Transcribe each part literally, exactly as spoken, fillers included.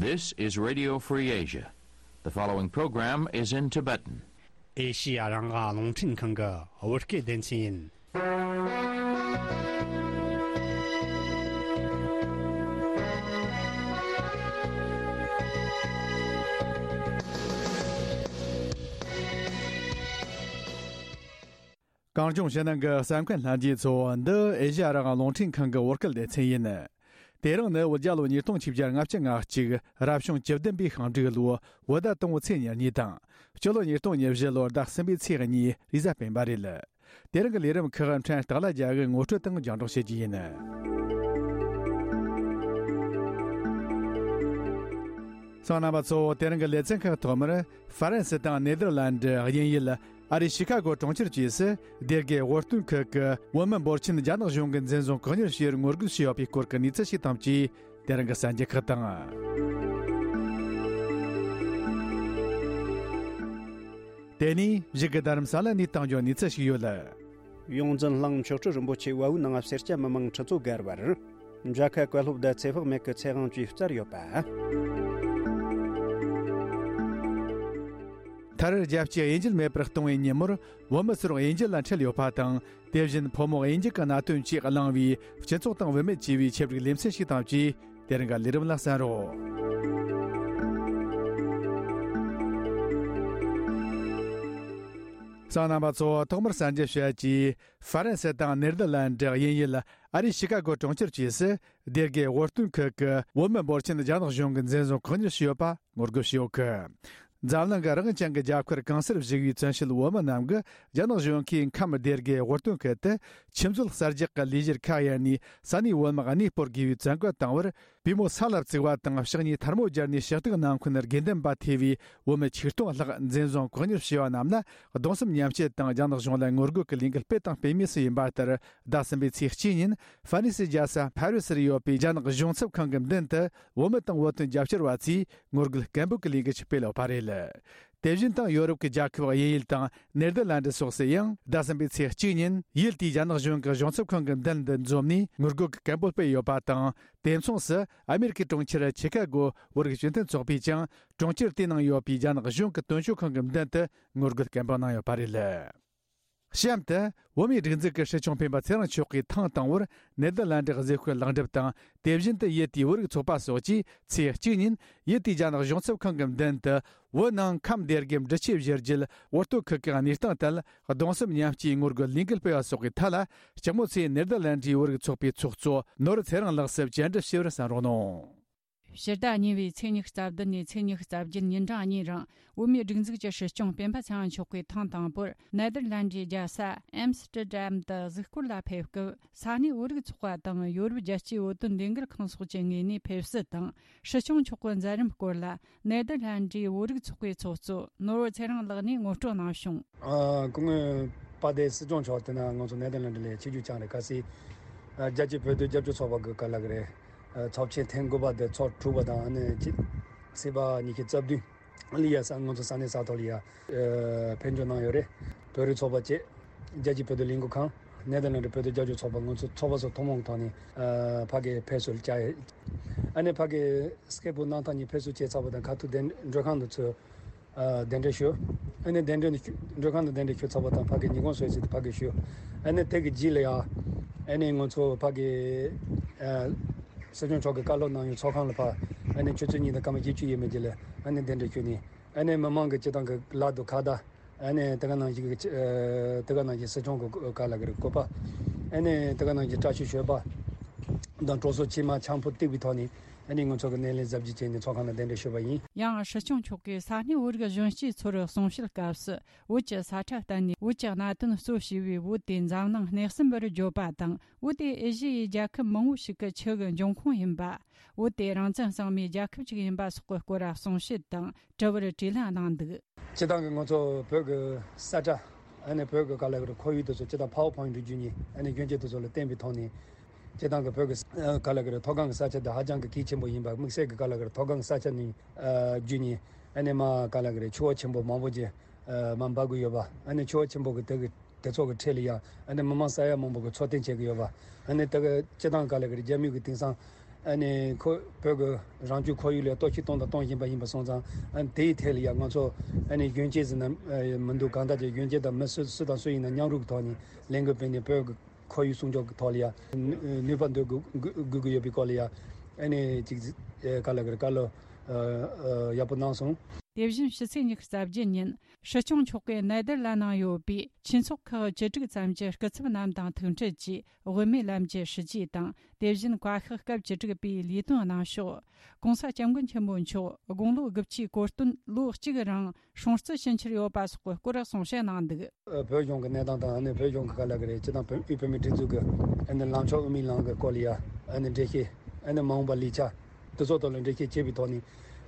This is Radio Free Asia. The following program is in Tibetan. ཨེ་ཤི་ཡ་རང་དབང་རླུང་འཕྲིན་ཁང་གི་བོད་སྐད་སྡེ་ཚན་ཡིན། གངས་ལྗོངས་ཕྱི་ནང་གི་གསན་མཁན་ལྷན་རྒྱས་ཚོ། འདི་ཨེ་ཤ་ཡ་རང་དབང་རླུང་འཕྲིན་ཁང་གི་བོད་སྐད་སྡེ་ཚན་ཡིན། དེ་རིང་ནི་བོད་རྒྱལ་ལོ་ཉིས་སྟོང་ཆིག་བརྒྱ་ལྔ་བཅུ་ང་གཅིག་རབ་བྱུང་བཅུ་བདུན་པའི་ཤིང་འབྲུག་ལོ་བོད་ཟླ་དང་པོའི་ཚེས་ཉེར་གཉིས་དང་། སྤྱི་ལོ་ཉིས་སྟོང་ཉེར་བཞི་ལོར་ཟླ་གསུམ་པའི་ཚེས་གཉིས་རེས་གཟའ་སྤེན་པ་རེད། དེ་རིང་གི་ལས་རིམ་ཁག་ཕྲན་སྟག་ལྷ་རྒྱལ་གྱིས་ངོ་སྤྲོད་དང་རྒྱང་སྒྲོག་བྱེད་རྒྱུ་ཡིན། གསན་མཁན་རྣམ་པ་ཚོ། དེ་རིང་གི་ལེ་ཚན་ཁག་ཐོག་མར། ཧྥ་རན་སི་དང་ནེ་དར་ལན་ཌི་དབྱིན་ཡུལ་ཨ་རིའི་ཤི་ཁ་གོ་གྲོང་ཁྱེར་བཅས་སུ་སྡེ་དགེ་དབུ་སྟོན་ཁུལ་གྱི་བོད་མི་འབོར་ཆེན་རྒྱ་ནག་གཞུང་གིས་འཛིན་བཟུང་བཀག་ཉར་བྱས་པར་ངོ་རྒོལ་བྱས་ཡོད་པའི་སྐོར་གྱི་གནས་ཚུལ་ཞིག་དང་བཅས། དེ་རིང་གི་གསར་འགྱུར་ཁག་དང་། དེ་ནས་གཞུག་གི་རྡ་རམ་ས་ལ་ནས་བཏང་རྒྱུའི་གནས་ཚུལ་ཞིག་ཡོད། ཡོངས་འཛིན་གླིང་མཆོག་སྤྲུལ་རིན་པོ་ཆེ་བལ་པོའི་ནང་སེར་སྐྱ་མི་མང་ཁྲི་ཚོ་བརྒལ་བར། མཇལ་ཁ་བཀའ་སློབ་དང་ཚེ་དཔག་མེད་ཀྱི་ཚེ་དབང་བཅས་བསྩལ་ཡོད་པ། མཐར་རྒྱལ་སྤྱིའི་དབྱིན་ཇི་མེད་པར་གཏོང་བའི་ཉིན་མོར། བོད་མི་ཚོར་དབྱིན་ཇི་ལ་འཁྲིད་ཡོད་པ་དང་། དེ་བཞིན་ཕོ་མོ་དབྱིན་ཇི་གི་གནད་དོན་བཅས་གླེང་བའི་སྤྱི་ཚོགས་དང་བུད་མེད་ཅེས་པའི་ཆེད་བསྒྲིགས་ལེ་ཚན་ཞིག་དང་བཅས། དེ་རིང་གི་ལས་རིམ་ལ་གསན་རོགས། གསན་མཁན་རྣམ་པ་ཚོ། ཐོག་མར་གསར་འགྱུར་བཤད་རྒྱུ། ཧྥ་རན་སི་དང་ནེ་དར་ལན་ཌི་དབྱིན་ཡུལ་ཨ་རིའི་ཤི་ཁ་གོ་གྲོང་ཁྱེར་བཅས་སུ། སྡེ་དགེ་དབུ་སྟོན་ཁུལ་གྱི་བོད་མི་འབོར་ཆེན་རྒྱ་ནག་གཞུང་གིས་འཛིན་བཟུང་བཀག་ཉར་བྱས་ཡོད་པ་ངོ་རྒོལ་བྱས་ཡོད་གི། འཛམ་གླིང་གི་རང་དབང་ཅན་གྱི་རྒྱལ་ཁབ་གང་སར་བཞུགས་པའི་བཙན་བྱོལ་བོད་མི་རྣམས་ཀྱིས་རྒྱ་ནག་གཞུང་གིས་ཁམས་སྡེ་དགེ་དབུ་སྟོན་ཁུལ་དུ་ཆུ་མཛོད་གསར་རྒྱག་གི་ལས་གཞིར་ཁ་གཡར་ནས་ས་གནས་བོད་དམག་གནས་སྤོར་དགོས་པའི་བཙན་བཀའ་བཏང་བར། པུས་མོ་ས་ལ་བཙུགས་པ་དང་ཕྱག་གཉིས་ཐལ་མོ་སྦྱར་ནས་ཕྱག་རྟགས་གནང་མཁན་དགེ་འདུན་པ་ཐེ་བའི་བོད་མི་ཆིག་སྟོང་ལྷག་འཛིན་བཟུང་བཀག་ཉར་བྱས་པ་རྣམས་ལ་གདུང་སེམས་མཉམ་སྐྱེད་དང་རྒྱ་ནག་གཞུང་ལ་ངོ་རྒོལ་གྱི་ལས་འགུལ་སྤེལ་དང་སྤེལ་མུས་སུ་ཡིན་པ་ལྟར། ཟླ་གསུམ་པའི་ཚེས་གཅིག་ཉིན་ཧྥ་རན་སིའི་རྒྱལ་ས་ཕ་རི་སིར་ཡོད་པའི་རྒྱ་ནག་གཞུང་ཚབ་ཁང་གི་མདུན་དུ་བོད་མི་དང་བོད་དོན་རྒྱབ་སྐྱོར་བ་ཚོས་ངོ་རྒོལ་སྐད་འབོད་ཀྱི་ལས་འགུལ་ཞིག་སྤེལ་ཡོད་པ་རེད། དེ་བཞིན་དང་ཡོ་རོབ་ཀྱི་རྒྱལ་ཁབ་དབྱིན་ཡུལ་དང་ནེ་དར་ལན་ཌི་སོགས་སུ་ཡང་ཟླ་གསུམ་པའི་ཚེས་གཅིག་ཉིན་ཡུལ་དེའི་རྒྱ་ནག་གཞུང་གི་གཞུང་ཚབ་ཁང་གི་མདུན་དུ་འཛོམས་ནས་ངོ་རྒོལ་གྱི་སྐད་འབོད་སྤེལ་ཡོད་པ་དང་། དེ་མཚུངས་སུ་ཨ་མེ་རི་ཁའི་གྲོང་ཁྱེར་ཆི་ཁ་གོ་བོད་རིགས་སྤྱི་མཐུན་ཚོགས་པས་ཀྱང་གྲོང་ཁྱེར་དེའི་ནང་ཡོད་པའི་རྒྱ་ནག་གཞུང་གི་དོན་གཅོད་ཁང་གི་མདུན་དུ་ངོ་རྒོལ་སྐད་འབོད་གནང་ཡོད་པ་རེད། གཤམ་དུ། བོད་མིའི་སྒྲིག་འཛུགས་ཀྱི་སྲིད་སྐྱོང་སྤེན་པ་ཚེ་རིང་མཆོག་གིས་ཐེངས་དང་པོར་ནེ་དར་ལན་ཌི་གཟིགས་སྐོར་ལེགས་འགྲུབ་དང་། དེ་བཞིན་དུ་ཡུལ་དེའི་བོད་རིགས་ཚོགས་པ་སོགས་ཀྱིས་ཚེས་གཅིག་ཉིན་ཡུལ་དེའི་རྒྱ་ནག་གཞུང་ཚབ་ཁང་གི་མདུན་དུ། བོད་ནང་ཁམས་སྡེ་དགེ་འབྲི་ཆུའི་བཞི་རྒྱུད་དབུ་སྟོད་ཁུལ་གྱི་གནས་སྟངས་ཐད་གདུང་སེམས་མཉམ་སྐྱེའི་ངོ་རྒོལ་ལས་འགུལ་སྤེལ་བ་སོགས་ཀྱི་ཐད་ལ། སྤྱི་མོས་ཚེ་ནེ་དར་ལན་ཌིའི་བོད་རིགས་ཚོགས་པའི་ཚོགས་གཙོ་ནོར་བུ་ཚེ་རིང་ལགས་སུ་བཅར་འདྲི་ཞུས་པར་གསན་རོགས་གནང་། ཕྱི་ཟླ་གཉིས་པའི་ཚེས་ཉི་ཤུ་རྩ་བདུན་ནས་ཚེས་ཉི་ཤུ་རྩ་བརྒྱད་ཉིན་གྲངས་གཉིས་རིང་བོད་མིའི་སྒྲིག་འཛུགས་ཀྱི་སྲིད་སྐྱོང་སྤེན་པ་ཚེ་རིང་མཆོག་གིས་ཐེངས་དང་པོར་ནེ་དར་ལན་ཌིའི་རྒྱལ་ས་ཨེམ་སི་ཏྲི་ཌམ་དུ་གཟིགས་སྐོར་ལ་ཕེབས་སྐབས། ས་གནས་བོད་རིགས་ཚོགས་པ་དང་ཡོ་རོབ་རྒྱལ་སྤྱིའི་བོད་དོན་ལས་འགུལ་ཁང་སོགས་ཀྱི་ངོས་ནས་ཕེབས་བསུ་དང་། སྲིད་སྐྱོང་མཆོག་གི་མཛད་རིམ་སྐོར་ལ་ནེ་དར་ལན་ཌིའི་བོད་རིགས་ཚོགས་པའི་ཚོགས་གཙོ་ནོར་བུ་ཚེ་རིང་ལགས་ནས་ངོ་སྤྲོད་གནང་བྱུང་། ཨ། སྐུ་ངོ་པ་ཏེ་སྲིད་སྐྱོང་མཆོག་དེ་ན་ང་ཚོ་ནེ་དར་ལན་ཌི་ལ་ཆིབས་བསྒྱུར་བསྐྱངས་རེད། གལ་སྲིད་ཨ་རྒྱལ་སྤྱིའི་བོད་དོན་རྒྱབ་སྐྱོར་ཚོགས་པ་གི་ག་ལ་གི་རེད། ཨ། ཚབས་ཆེན་ཐེངས་དགུ་པ་དེ་ཚོགས་གྲུབ་པ་དང་། ཨ་ནི་ཕྱི་ཚེས་པ་ཉི་ཤུ་རྩ་བདུན་ལ་ཡ་ས་ང་ཚོ་ས་གནས་ས་ཐོག་ལ་ཡ་ཨ་ཕེབས་འབྱོར་གནང་ཡོད་རེད། བོད་རིགས་ཚོགས་པ་བཅས་རྒྱལ་སྤྱིའི་བོད་དོན་ལས་འགུལ་ཁང་། ནེ་དར་ལན་ཌི་བོད་དོན་རྒྱབ་སྐྱོར་ཚོགས་པ། ང་ཚོ་ཚོགས་པ་ཚོ་ཐུན་མོང་གི་ཐོག་ནས་ཨ་ཕ་གི་ཕེབས་བསུ་བྱས། ཨ་ནི་ཕ་གི་སྐད་འབོད་གནང་ཐག་ཉིན་ཕེབས་བསུ་བྱས་ཚར་བ་དང་། ཁ་ཐུག་གདན་མགྲོན་ཁང་དུ་ཚུར་ཨ་གདན་འདྲེན་ཞུས། ཨ་ནི་གདན་འདྲེན་མགྲོན་ཁང་དུ་གདན་འདྲེན་ཞུས་ཚར་བ་དང་། ཕ་གི་ཉིན་གུང་གསོལ་ཚིགས་དེ་ཕ་གི་ཞུས། ཨ་ནི་དེ་གི་རྗེས་ལ་ཡ་ཨ་ནི་ང་ཚོ་ཕ་གི་ཨ་སྲིད་སྐྱོང་མཆོག་གིས་བཀའ་སློབ་གནང་ཡུལ་ཚོགས་ཁང་ལ་ཕར་ཨ་ནི་ཆུ་ཚོད་གཉིས་དང་སྐར་མ་བཞི་བཅུ་ཡས་མས་ཅིག་ལ་ཨ་ནི་གདན་འདྲེན་ཞུས་ནས། ཨ་ནི་མི་མང་གི་སྤྱི་བཏང་གི་ལག་ཏུ་ཁ་བརྡ། ཨ་ནི་དེ་ག་ནང་བཞིན་གྱི་ཨ་དེ་ག་ནང་བཞིན་སྲིད་སྐྱོང་གི་ག་ལ་གི་རེད། བཀོད་པ། ཨ་ནི་དེ་ག་ནང་བཞིན་བཀྲ་ཤིས་ཞོལ་པ་དང་གྲོགས་སོགས་ཕྱི་མ་ཆང་ཕོར་བཏེགས་པའི་ཐོག་ནས། ཨ་ནི་ང་ཚོ་གི་སྣེ་ལེན་གཟབ་རྒྱས་བྱས་ནས་ཚོགས་ཁང་ལ་གདན་འདྲེན་ཞུས་པ་ཡིན། ཡང་སྲིད་སྐྱོང་མཆོག་གིས་ས་གནས་བོད་རིགས་གཞོན་སྐྱེས་ཚོར་གསུང་བཤད་སྐབས་སུ། བོད་ཀྱི་ས་ཁྲ་བསྟན་ནས་བོད་ཀྱི་གནད་དོན་གཙོ་བྱས་པའི་བོད་དེ་འཛམ་གླིང་སྣེ་གསུམ་པར་བརྗོད་པ་དང་། བོད་དེ་ཨེ་ཤི་ཡའི་རྒྱལ་ཁབ་མང་བོ་ཞིག་གི་ཆུ་གི་འབྱུང་ཁུངས་ཡིན་པ། བོད་དེ་རང་བཙན་གཙང་མའི་རྒྱལ་ཁབ་ཅིག་ཡིན་པ་སོགས་ཀྱི་སྐོར་གསུང་བཤད་དང་དྲི་བར་དྲིས་ལན་གནང་འདུག། སྤྱིར་བཏང་གི་ང་ཚོ་བོད་ཀྱི་ས་ཁྲ། ཨ་ནི་བོད་ཀྱི་ག་ལ་གི་རེད། ཁོར་ཡུག་དེ་ཚོ་སྤྱིར་བཏང་པ་ཝར་པོའིན་ཊི་བརྒྱུད་ནས། ཨ་ནི་སྐྱོན་བརྗོད་དེ་ཚོ་ལ་བརྟེན་པའི་ཐོག་ནས། སྤྱིར་བཏང་གི་བོད་ཀྱི་ཨ་ག་ལ་གི་རེད། མཐོ་སྒང་གི་ས་ཆ་དེ་ཧ་ཅང་གི་གལ་ཆེན་པོ་ཡིན་པ། དམིགས་བསལ་གྱི་ག་ལ་གི་རེད། མཐོ་སྒང་གི་ས་ཆ་ནས་ཨ་བརྒྱུད་ནས། ཨ་ནི་མར་ག་ལ་གི་རེད། ཆུ་བོ་ཆེན་པོ་མང་པོ་ཅིག་ཨ་མར་འབབ་གི་ཡོད་པ། ཨ་ནི་ཆུ་བོ་ཆེན་པོ་གི་དེ་གི་དེ་ཚོ་གི་འཕྲེད་ལ་ཡ། ཨ་ནི་མི་མང་ས་ཡ་མང་པོ་གི་འཚོ་རྟེན་བྱེད་ཀྱི་ཡོད་པ། ཨ་ནི་དེ་གི་སྤྱིར་བཏང་ག་ལ་གི་རེད། རྒྱ་མི་གི་དེང་སང་ ཨ་ནི་ཁོ་བོད་ཀྱི་རང་སྐྱོང་ཁོར་ཡུག་ལ་གཏོར་བཤིག་གཏོང་དང་གཏོང་བཞིན་པ་ཡིན་པ་སོང་ཙང་། ཨ་ནི་དེའི་ཐད་ལ་ཡ་ང་ཚོ་ཨ་ནི་གཞོན་སྐྱེས་ཟེར་ན་མི་འདུག་གང་ལྟར་གྱི་གཞོན་སྐྱེས་དང་མི་སུ་སུ་དང་སུ་ཡིན་ན་མཉམ་རུབ་ཀྱི་ཐོག་ནས་ལས་འགུལ་སྤེལ་ནས་བོད་ཀྱི་ཁོར་ཡུག་སྲུང་སྐྱོབ་ཀྱི་ཐོག་ལ་ཡ་ནུས་པ་འདོན་དགོས་དགོས་ཀྱི་ཡོད་པའི་སྐོར་ལ་ཡ་ཨ་ནི་ཅིག་ག་ལ་གི་རེད། བཀའ་སློབ་ཡག་པོ་གནང་སོང་། དེ་བཞིན་ཕྱི་ཚེས་ཉི་ཤུ་རྩ་བརྒྱད་ཉིན་སྲིད་སྐྱོང་མཆོག་གིས་ནེ་དར་ལན་ནང་ཡོད་པའི་ཆོས་ཚོགས་ཁག་བཅུ་དྲུག་ཙམ་གྱི་སྐུ་ཚབ་རྣམས་དང་ཐུག་འཕྲད་ཀྱིས་དབུ་མའི་ལམ་གྱི་སྲིད་ཇུས་དང་། དེ་བཞིན་བཀའ་ཤག་སྐབས་བཅུ་དྲུག་པའི་ལས་དོན་གནང་ཕྱོགས། ༸གོང་ས་༸སྐྱབས་མགོན་ཆེན་པོ་མཆོག་དགུང་ལོ་དགུ་བཅུའི་གོ་སྟོན་ལོ་གཅིག་རིང་སྲུང་བརྩི་ཞུ་འཆར་ཡོད་པ་སོགས་ཀྱི་སྐོར་གསུང་བཤད་གནང་འདུག། བོད་གཞུང་གི་གནས་སྟངས་དང་ཨ་ནི་བོད་གཞུང་གི་ག་ལ་གི་རེད། སྤྱི་བཏང་བོད་དབུས་བོད་མིའི་སྒྲིག་འཛུགས་ཀྱི་ཨ་ནི་ལངས་ཕྱོགས་དབུ་མའི་ལམ་གྱི་སྐོར་ལ་ཡ་ཨ་ནི་འགྲེལ་བཤད། ཨ་ནི་མ་འོངས་པ་ལས་འཆར་དེ་ཚོ་ཐོག་ལ་འགྲེལ་བཤད་བྱས་པའི་ཐོག་ནས།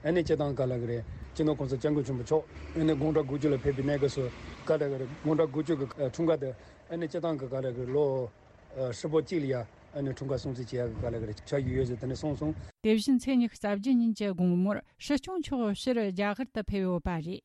ཨ་ནི་སྤྱི་བཏང་ག་ལ་གི་རེད། སྤྱི་ནོར་༸གོང་ས་༸སྐྱབས་མགོན་ཆེན་པོ་མཆོག་ཨ་ནི་དགུང་གྲངས་དགུ་བཅུ་ལ་ཕེབས་པའི་གནས་སྐབས་སུ་ག་ལ་གི་རེད། དགུང་གྲངས་དགུ་བཅུ་གི་འཁྲུངས་སྐར་དེ་ཨ་ནི་སྤྱི་བཏང་གི་ག་ལ་གི་ལོ་ཧྲིལ་པོ་གཅིག་ལ་ཡ་ཨ་ནི་འཁྲུངས་སྐར་སྲུང་བརྩི་བྱེད་ཡག་གི་ག་ལ་གི་རེད། འཆར་གཞི་ཡོད་ཟེར་དེ་ནས་གསུངས་སོང་། དེ་བཞིན་ཚེས་ཉི་ཤུ་རྩ་བརྒྱད་ཉིན་གྱི་དགོང་མོར་སྲིད་སྐྱོང་མཆོག་ཕྱིར་རྒྱ་གར་དུ་ཕེབས་ཡོད་པ་རེད།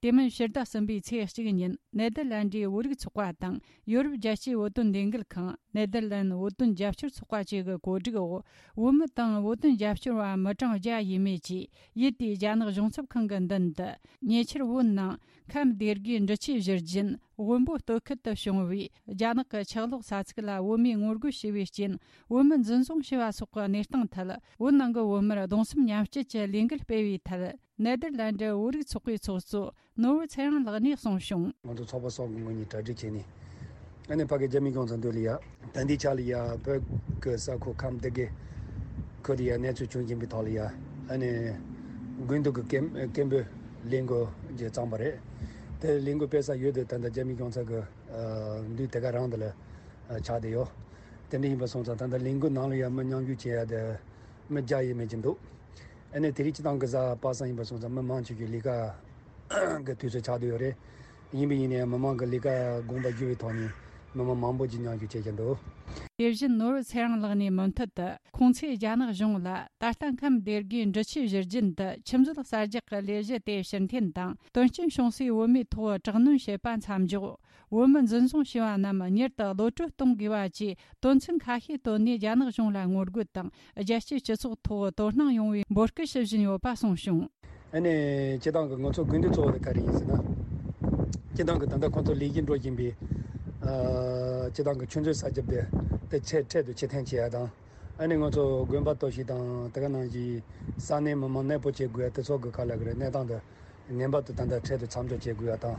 དེ་མིན་ཕྱི་ཟླ་གསུམ་པའི་ཚེས་གཅིག་ཉིན་ནེ་དར་ལན་ཌིའི་བོད་རིགས་ཚོགས་པ་དང་ཡོ་རོབ་རྒྱལ་སྤྱིའི་བོད་དོན་ལས་འགུལ་ཁང་། ནེ་དར་ལན་བོད་དོན་རྒྱབ་སྐྱོར་ཚོགས་པ་བཅས་ཀྱི་གོ་སྒྲིག་འོག་བོད་མི་དང་བོད་དོན་རྒྱབ་སྐྱོར་བ་མི་གྲངས་བརྒྱ་ཡས་མས་ཀྱིས་ཡུལ་དེའི་རྒྱ་ནག་གཞུང་ཚབ་ཁང་གི་མདུན་དུ་ཉེ་ཆར་བོད་ནང་ཁམས་སྡེ་དགུའི་འབྲི་ཆུའི་བཞུར་རྒྱུན་དབོན་པོ་སྟོད་ཁུལ་དུ་བྱུང་བའི་རྒྱ་ནག་གི་ཆག་ལོག་ས་ཚིགས་ལ་བོད་མིས་ངོ་རྒོལ་བྱས་པའི་རྐྱེན་བོད་མི་འཛིན་བཟུང་བྱས་པ་སོགས་ཀྱི་གནས་སྟངས་ཐད། བོད་ནང་གི་བོད་མིར་གདུང་སེམས་མཉམ་སྐྱེད་ཀྱི་ལས་འགུལ་སྤེལ་བའི་ཐད། ནེ་དར་ལན་ཌི་བོད་རིགས་ཚོགས་པའི་ཚོགས་གཙོ་ནོར་བུ་ཚེ་རིང་ལགས་ནས་གསུངས་བྱུང་། ང་ཚོ་ཚོགས་པ་སོགས་ཀྱི་ངོས་ནས་གྲ་སྒྲིག་བྱས་ནས། ཨ་ནི་ཕ་གི་རྒྱ་མི་གཞུང་ཚབ་མདུན་ལ་ཡ། ད་ལྟའི་ཆ་ལ་ཡ་བོད་ཀྱི་ས་ཁུལ་ཁམས་སྡེ་དགུ་ཁུལ་ལ་ཡ་གནས་ཚུལ་བྱུང་བཞིན་པའི་ཐོག་ལ་ཡ། ཨ་ནི་དགུན་དུས་ཀྱི་སྐད་སྐད་འབོད་ལས་འགུལ་ཅིག་བརྩམས་པ་རེད། དེ་ལས་འགུལ་སྤེལ་ས་ཡུལ་དེ་ད་ལྟ་རྒྱ་མི་གཞུང་ཚབ་ཀྱི་ཨ་མདུན་དེ་ག་རང་དེ་ལ་ཨ་ཆགས་བསྡད་ཡོད། དེ་འདྲ་ཡིན་པ་སོང་ཙང་ད་ལྟ་ལས་འགུལ་ནང་ལ་ཡ་མི་མཉམ་ཞུགས་བྱེད་ཡ་དེ་མི་བརྒྱ་ཡས་མས་ཅིག་འདུག། ཨ་ནི་དེ་རིང་སྤྱི་བཏང་གི་གཟའ་པ་སངས་ཡིན་པ་སོང་ཙང་མི་མང་ཆེ་ཤོས་ལས་ཀ་གི་དུས་ཚོད་ཆགས་བསྡད་ཡོད་རེད། ཡིན་པ་ཡིན་ནའི་མི་མང་གི་ལས་ཀ་དགོངས་པ་བཞེས་པའི་ཐོག་ནས་མི་མང་མང་པོ་ཅིག་མཉམ་ཞུགས་བྱེད་ཀྱི་འདུག། དེ་བཞིན་ནོར་བུ་ཚེ་རིང་ལགས་ནས་མུ་མཐུད་དུ་ཁོང་ཚོས་རྒྱ་ནག་གཞུང་ལ་ད་ལྟ་ཁམས་སྡེ་དགུའི་འབྲི་ཆུའི་བཞུར་རྒྱུན་དུ་ཆུ་མཛོད་གསར་རྒྱག་གི་ལས་གཞི་དེ་ཕྱིར་འཐེན་དང་དོན་རྐྱེན་བྱུང་སའི་བོད་མིའི་ཐོག་དྲག་གནོན་བྱེད་པ་མཚམས་འཇོག། བོད་མི་འཛིན་བཟུང་བྱས་པ་རྣམས་མྱུར་དུ་གློད་གྲོལ་གཏོང་དགོས་པ་བཅས་དོན་ཚན་ཁ་ཤས་བཏོན་ནས་རྒྱ་ནག་གཞུང་ལ་ངོ་རྒོལ་དང་རྒྱལ་སྤྱིའི་སྤྱི་ཚོགས་ཐོག་དོ་སྣང་ཡོང་བའི་འབོད་སྐུལ་ཞུ་བཞིན་ཡོད་པ་གསུངས་བྱུང་། ཨ་ནི་སྤྱི་བཏང་གི་ང་ཚོ་དགོས་འདུན་གཙོ་བོ་དེ་ག་རེ་ཡིན་ཟེར་ན། སྤྱི་བཏང་གི་ད་ལྟ་ཁོང་ཚོ་ལས་གཞི་འགྲོ་བཞིན་པའི་ཨ་སྤྱི་བཏང་གི་ཆུ་མཛོད་གསར་རྒྱག་དེ་དེ་ཚད་འཕྲལ་དུ་ཕྱིར་འཐེན་བྱེད་ཡ་དང་། ཨ་ནི་ང་ཚོ་དགོན་པ་གཏོར་བཤིག་དང་དེ་ག་ནང་བཞིན་ས་གནས་མི་མང་གནས་སྤོ་བྱེད་དགོས་ཡ་དེ་ཚོ་གི་ག་ལ་གི་རེད། གནས་སྟངས་དེ་ངེས་པར་དུ་ད་ལྟ་འཕྲལ་དུ་མཚམས་འཇོག་བྱེད་དགོས་ཡ་དང་།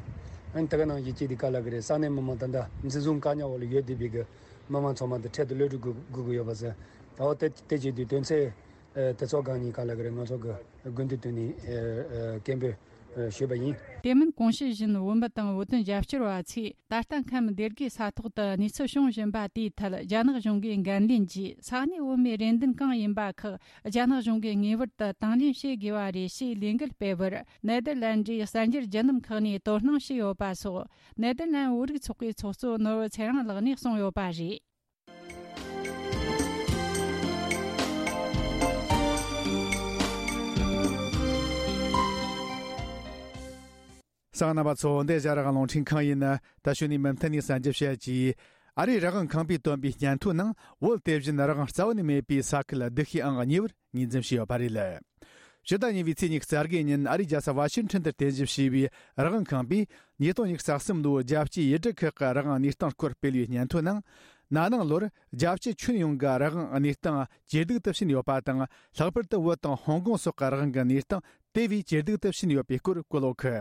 ཨ་ནི་དེ་ག་ནང་བཞིན་གཅིག་དེ་ག་ལ་གི་རེད། ས་གནས་མི་མང་ད་ལྟ་འཛིན་བཟུང་བཀག་ཉར་འོག་ལ་ཡོད་བསྡད་པའི་གི་མི་མང་ཚང་མ་དེ་འཕྲལ་དུ་གློད་གྲོལ་དགོས་དགོས་ཀྱི་ཡོད་པ་ཟེར། ད་འོ་དེ་དེ་བྱེད་དུས་དོན་ཚན་ཨ་དེ་ཚོ་སྒང་ནས་ག་ལ་གི་རེད། ང་ཚོ་གི་དགོས་འདུན་བཏོན་ནས་ཨ་ཨ་སྐད་འབོད་ཨ་ཞུས་པ་ཡིན། དེ་མིན་གོང་ཞུས་བཞིན་བོད་མི་དང་བོད་དོན་རྒྱབ་སྐྱོར་བ་ཚོས་ད་ལྟ་ཁམས་སྡེ་དགུའི་ས་ཐོག་ཏུ་གནས་ཚུལ་བྱུང་བཞིན་པ་དེའི་ཐད་རྒྱ་ནག་གཞུང་གིས་འགན་ལེན་གྱིས་ས་གནས་བོད་མིའི་རེ་འདུན་གང་ཡིན་པ་ཁག་རྒྱ་ནག་གཞུང་གིས་ངེས་པར་དུ་དང་ལེན་བྱེད་དགོས་པ་རེད་ཞེས་ལས་འགུལ་སྤེལ་བར་ནེ་དར་ལན་ཌིའི་གསར་འགྱུར་བརྒྱུད་ལམ་ཁག་ནས་དོ་སྣང་བྱས་ཡོད་པ་སོགས་ནེ་དར་ལན་བོད་རིགས་ཚོགས་པའི་ཚོགས་གཙོ་ནོར་བུ་ཚེ་རིང་ལགས་ནས་གསུངས་ཡོད་པ་རེད། གསན་མཁན་རྣམ་པ་ཚོ། འདི་ཨེ་ཤ་ཡ་རང་དབང་རླུང་འཕྲིན་ཁང་ཡིན། ད་གཞུག་ནས་མུ་མཐུད་ནས་གསར་འགྱུར་བཤད་ཀྱིས། ཨ་རིའི་རང་དབང་ཁང་པས་བཏོན་པའི་སྙན་ཐོའི་ནང་བོད་དེ་བཞིན་རང་དབང་རྩ་བ་ནས་མེད་པའི་ས་ཁུལ་སྡུག་ཤོས་ཨང་གཉིས་པར་ངོས་འཛིན་བྱས་ཡོད་པ་རེད། ཕྱི་ཟླ་གཉིས་པའི་ཚེས་ཉི་ཤུ་རྩ་དགུ་ཉིན་ཨ་རིའི་རྒྱལ་ས་ཝ་ཤིང་ཊོན་དུ་རྟེན་གཞི་བྱས་པའི་རང་དབང་ཁང་པས་ཉིས་སྟོང་ཉི་ཤུ་རྩ་གསུམ་ལོའི་རྒྱལ་སྤྱིའི་ཡུལ་གྲུ་ཁག་གི་རང་དབང་གནས་སྟངས་སྐོར་སྤེལ་བའི་སྙན་ཐོའི་ནང་། ན་ནིང་ལོར་རྒྱལ་སྤྱི་ཁྱོན་ཡོངས་ཀྱི་རང་དབང་གནས་སྟངས་ཇེ་སྡུག་ཏུ་ཕྱིན་ཡོད་པ་དང་། ལྷག་པར་དུ་བོད་དང་ཧོང་ཀོང་སོགས་ཀྱི་རང་དབང་གི་གནས་སྟངས་དེ་བས་ཇེ་སྡུག་ཏུ་ཕྱིན་ཡོད་པའི་སྐོར་བཀོད་ཡོད་གི།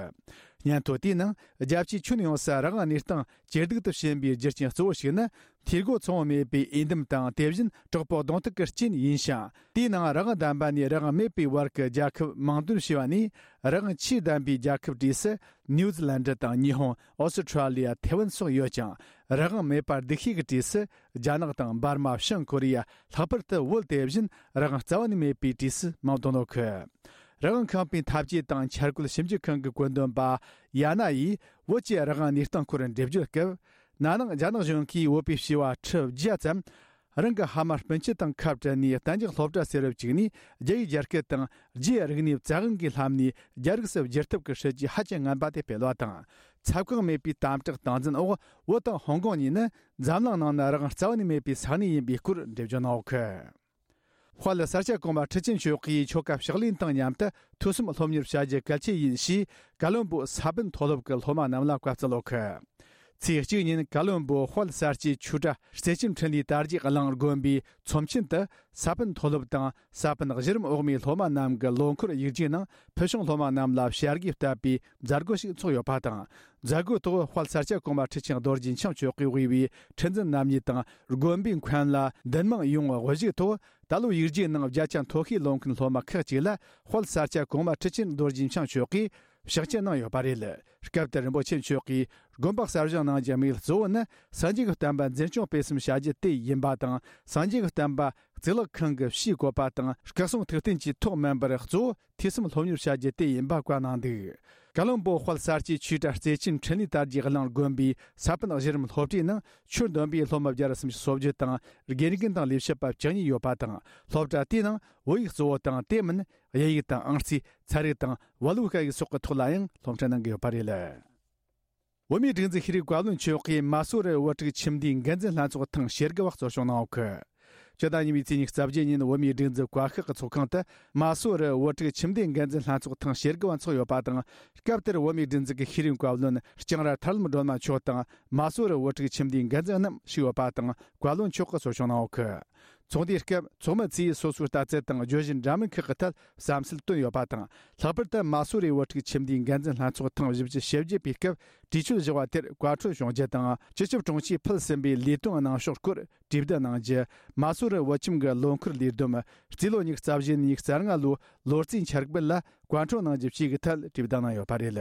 སྙན་ཐོ་དེའི་ནང་རྒྱལ་སྤྱིའི་ཁྱོན་ཡོངས་སུ་རང་དབང་གནས་སྟངས་ཇེ་སྡུག་ཏུ་ཕྱིན་པའི་རྒྱུ་རྐྱེན་གཙོ་བོ་ཞིག་ནི། འཐུས་སྒོ་ཚང་བ་མེད་པའི་འོས་འདེམས་དང་། དེ་བཞིན་དྲག་པོའི་གདོང་ཐུག་གི་རྐྱེན་ཡིན་ཞིང་། དེའི་ནང་རང་དབང་ལྡན་པ་ནས་རང་དབང་མེད་པའི་བར་གྱི་རྒྱལ་ཁབ་མིང་འདོན་བྱས་པ་ནས། རང་དབང་ཆེས་ལྡན་པའི་རྒྱལ་ཁབ་གྲས་སུ་ནིའུ་ཛི་ལན་ཌི་དང་། ཉི་ཧོང་། ཨོ་སི་ཁྲ་ལི་ཡ། ཐེ་ཝན་སོགས་ཡོད་ཅིང་། རང་དབང་མེད་པ་སྡུག་ཤོས་ཀྱི་གྲས་སུ་རྒྱ་ནག་དང་། འབར་མ། བྱང་ཀོ་རི་ཡ། ལྷག་པར་དུ་བོད་དེ་བཞིན་རང་དབང་རྩ་བ་ནས་མེད་པའི་གྲས་སུ་མིང་འདོན་ཡོད་གི། རང་དབང་ཁང་པའི་འཐབ་ཇུས་དང་འཆར་འགོད་ཞིབ་འཇུག་ཁང་གི་བཀོད་འདོམས་པ་ཡ་ན་ཡིས་བོད་ཀྱི་རང་དབང་གནས་སྟངས་སྐོར་འགྲེལ་བརྗོད་སྐབས། ན་ནིང་རྒྱ་ནག་གཞུང་གིས་བོད་པའི་བྱིས་པ་ཁྲི་བརྒྱ་ཙམ་རང་གི་ཕ་མ་སྤུན་མཆེད་དང་ཁ་བྲལ་ནས་གཏན་རྒྱག་སློབ་གྲྭ་ཟུར་དུ་བཅུག་ནས། རྒྱ་ཡིག་སྦྱར་སྐད་དང་རྒྱའི་རིག་གནས་བཙན་དབང་གིས་ལྷམ་ནས་རྒྱ་རིགས་སུ་བསྒྱུར་ཐབས་ཀྱི་སྲིད་ཇུས་ཧ་ཅང་ངན་པ་དེ་སྤེལ་བ་དང་། ཚབ་ཁང་མེད་པའི་དམ་དྲག་སྟངས་འཛིན་འོག་བོད་དང་ཧོང་ཀོང་གཉིས་ནི་འཛམ་གླིང་ནང་ན་རང་དབང་རྩ་བ་ནས་མེད་པའི་ས་གནས་ཡིན་པའི་སྐོར་འགྲེལ་བརྗོད་གནང་ཡོད་གི། དཔལ་ས་སྐྱ་གོང་མ་ཁྲི་ཆེན་མཆོག་གིས་ཆོ་ག་ཕྱག་ལེན་དང་མཉམ་དུ་ཐོས་བསམ་སློབ་གཉེར་བྱ་རྒྱུ་གལ་ཆེ་ཡིན་ཞེས། ཀ་ལོན་པོ་ས་པཎ་མཐོ་སློབ་ཀྱི་སློབ་མ་རྣམས་ལ་བཀའ་སྩལ་ཡོད་གི། ཚེས་གཅིག་ཉིན་ཀ་ལོན་པོ་དཔལ་ས་སྐྱའི་ཆོས་གྲྭ་རྩེ་ཆེན་འཕྲིན་ལས་དར་རྒྱས་གླིང་དགོན་པའི་ཚོམས་ཆེན་དུ། ས་པཎ་མཐོ་སློབ་དང་ས་པཎ་གཞི་རིམ་འོག་མའི་སློབ་མ་རྣམས་ཀྱི་ལོ་འཁོར་ཡིག་རྒྱུགས་ནང་ཕུལ་བྱུང་སློབ་མ་རྣམས་ལ་བྱ་དགའ་བསྟབས་པའི་མཛད་སྒོ་ཞིག་ཚོགས་ཡོད་པ་དང་། མཛད་སྒོའི་ཐོག་དཔལ་ས་སྐྱ་གོང་མ་ཁྲི་ཆེན་རྡོ་རྗེ་འཆང་མཆོག་གིས་དབུས་པའི་ཁྲི་འཛིན་རྣམ་གཉིས་དང་། དགོན་པའི་མཁན་བླ་འདུན་མང་ཡོངས་དབུ་བཞུགས་ཐོག་ད་ལོའི་ཡིག་རྒྱུགས་ནང་བརྒྱ་ཆ་མཐོ་ཤོས་ལོན་མཁན་སློབ་མ་ཁག་ཅིག་ལ་དཔལ་ས་སྐྱ་གོང་མ་ཁྲི་ཆེན་རྡོ་རྗེ་འཆང་མཆོག་གིས་ཕྱག་འཁྱེར་གནང་ཡོད་པ་རེད། སྐབས་དེར་རིན་པོ་ཆེ་མཆོག་གིས་དགོན་པ་གསར་བཞེངས་གནང་རྒྱུའི་དམིགས་ཡུལ་གཙོ་བོ་ནི་སངས་རྒྱས་ཀྱི་བསྟན་པ་འཛིན་སྐྱོང་སྤེལ་གསུམ་བྱ་རྒྱུ་དེ་ཡིན་པ་དང་། སངས་རྒྱས་ཀྱི་བསྟན་པ་གཙུག་ལག་ཁང་གི་ཕྱིའི་བཀོད་པ་དང་སྐུ་གསུང་ཐུགས་རྟེན་གྱི་ཐོག་མིན་པར། གཙོ་བོ་ཐོས་བསམ་སློབ་གཉེར་བྱ་རྒྱུ་དེ་ཡིན་པ་བཀའ་གནང་འདུག་ཀ་ལོན་པོ་དཔལ་ས་སྐྱའི་ཆོས་གྲྭ་རྩེ་ཆེན་འཕྲིན་ལས་དར་རྒྱས་གླིང་དགོན་པའི་ས་པཎ་གཞི་རིམ་སློབ་གྲྭའི་ནང་ཆོས་འདོན་པའི་སློབ་མ་བརྒྱ་ར་སུམ་ཅུ་སོ་བརྒྱད་དང་། དགེ་རྒན་དང་ལས་བྱེད་པ་བཅུ་གཉིས་ཡོད་པ་དང་། སློབ་གྲྭ་དེའི་ནང་བོད་ཡིག་གཙོ་བོ་དང་། དེ་མིན་དབྱིན་ཡིག་དང་ཨང་རྩིས། ཚན་རིག་དང་བལ་པོའི་སྐད་ཡིག་སོགས་ཀྱི་ཐོག་ལ་ཡང་སློབ་ཁྲིད་གནང་གི་ཡོད་པ་རེད། བོད་མིའི་སྒྲིག་འཛུགས་ཤེས་རིག་བཀའ་བློན་མཆོག་གིས་མ་སུ་རི་བོད་ཕྲུག་ཁྱིམ་སྡེའི་འགན་འཛིན་ལྷན་ཚོགས་ཐེངས་ཞེ་དགུ་བ་གཙོ་སྐྱོང་གནང་ཡོད་གི། སྤྱི་ཟླ་གཉིས་པའི་ཚེས་ཉི་ཤུ་རྩ་བརྒྱད་ཉིན་བོད་མིའི་སྒྲིག་འཛུགས་བཀའ་ཤག་གི་ཚོགས་ཁང་དུ་མ་སུ་རི་བོད་ཕྲུག་ཁྱིམ་སྡེའི་འགན་འཛིན་ལྷན་ཚོགས་ཐེངས་ཞེ་དགུ་བ་འཚོགས་ཡོད་པ་དང་། སྐབས་དེར་བོད་མིའི་སྒྲིག་འཛུགས་ཀྱི་ཤེས་རིག་བཀའ་བློན་ལྕང་ར་ཐར་ལམ་སྒྲོལ་མ་མཆོག་དང་། མ་སུ་རི་བོད་ཕྲུག་ཁྱིམ་སྡེའི་འགན་འཛིན་རྣམས་ཞུགས་ཡོད་པ་དང་། བཀའ་བློན་མཆོག་གིས་གཙོ་སྐྱོང་གནང་ཡོད་གི། ཚོགས་འདུའི་སྐབས་ཚོགས་མི་ཚོས་སོ་སོའི་ལྟ་ཚུལ་དང་བརྗོད་གཞི་འདྲ་མིན་ཁག་གི་ཐད་བསམ་ཚུལ་བཏོན་ཡོད་པ་དང་། ལྷག་པར་དུ་མ་སུ་རི་བོད་ཕྲུག་ཁྱིམ་སྡེའི་འགན་འཛིན་ལྷན་ཚོགས་ཐེངས་བཞི་བཅུ་ཞེ་བརྒྱད་པའི་སྐབས་གྲོས་ཆོད་བཞག་པ་དེར་བཀའ་འཁྲོལ་བྱུང་རྒྱུ་དང་། སྤྱི་ཁྱབ་དྲུང་ཆེས་ཕུལ་ཟིན་པའི་ལས་དོན་གནང་ཕྱོགས་སྐོར་གྲོས་བསྡུར་གནང་རྒྱུ། མ་སུ་རི་བོད་ཁྱིམ་གྱི་ལོ་འཁོར་ལས་བསྡོམས་རྩིས་ལོ་ཉི་ཤུ་རྩ་བཞི་ནས་ཉི་ཤུ་རྩ་ལྔ་ལོའི་ལོ་རྩིས་འཆར་འབུལ་ལ་བཀའ་འཁྲོལ་གནང་རྒྱུ་བཅས་ཀྱི་ཐད་གྲོས་བསྡུར་གནང་ཡོད་པ་རེད།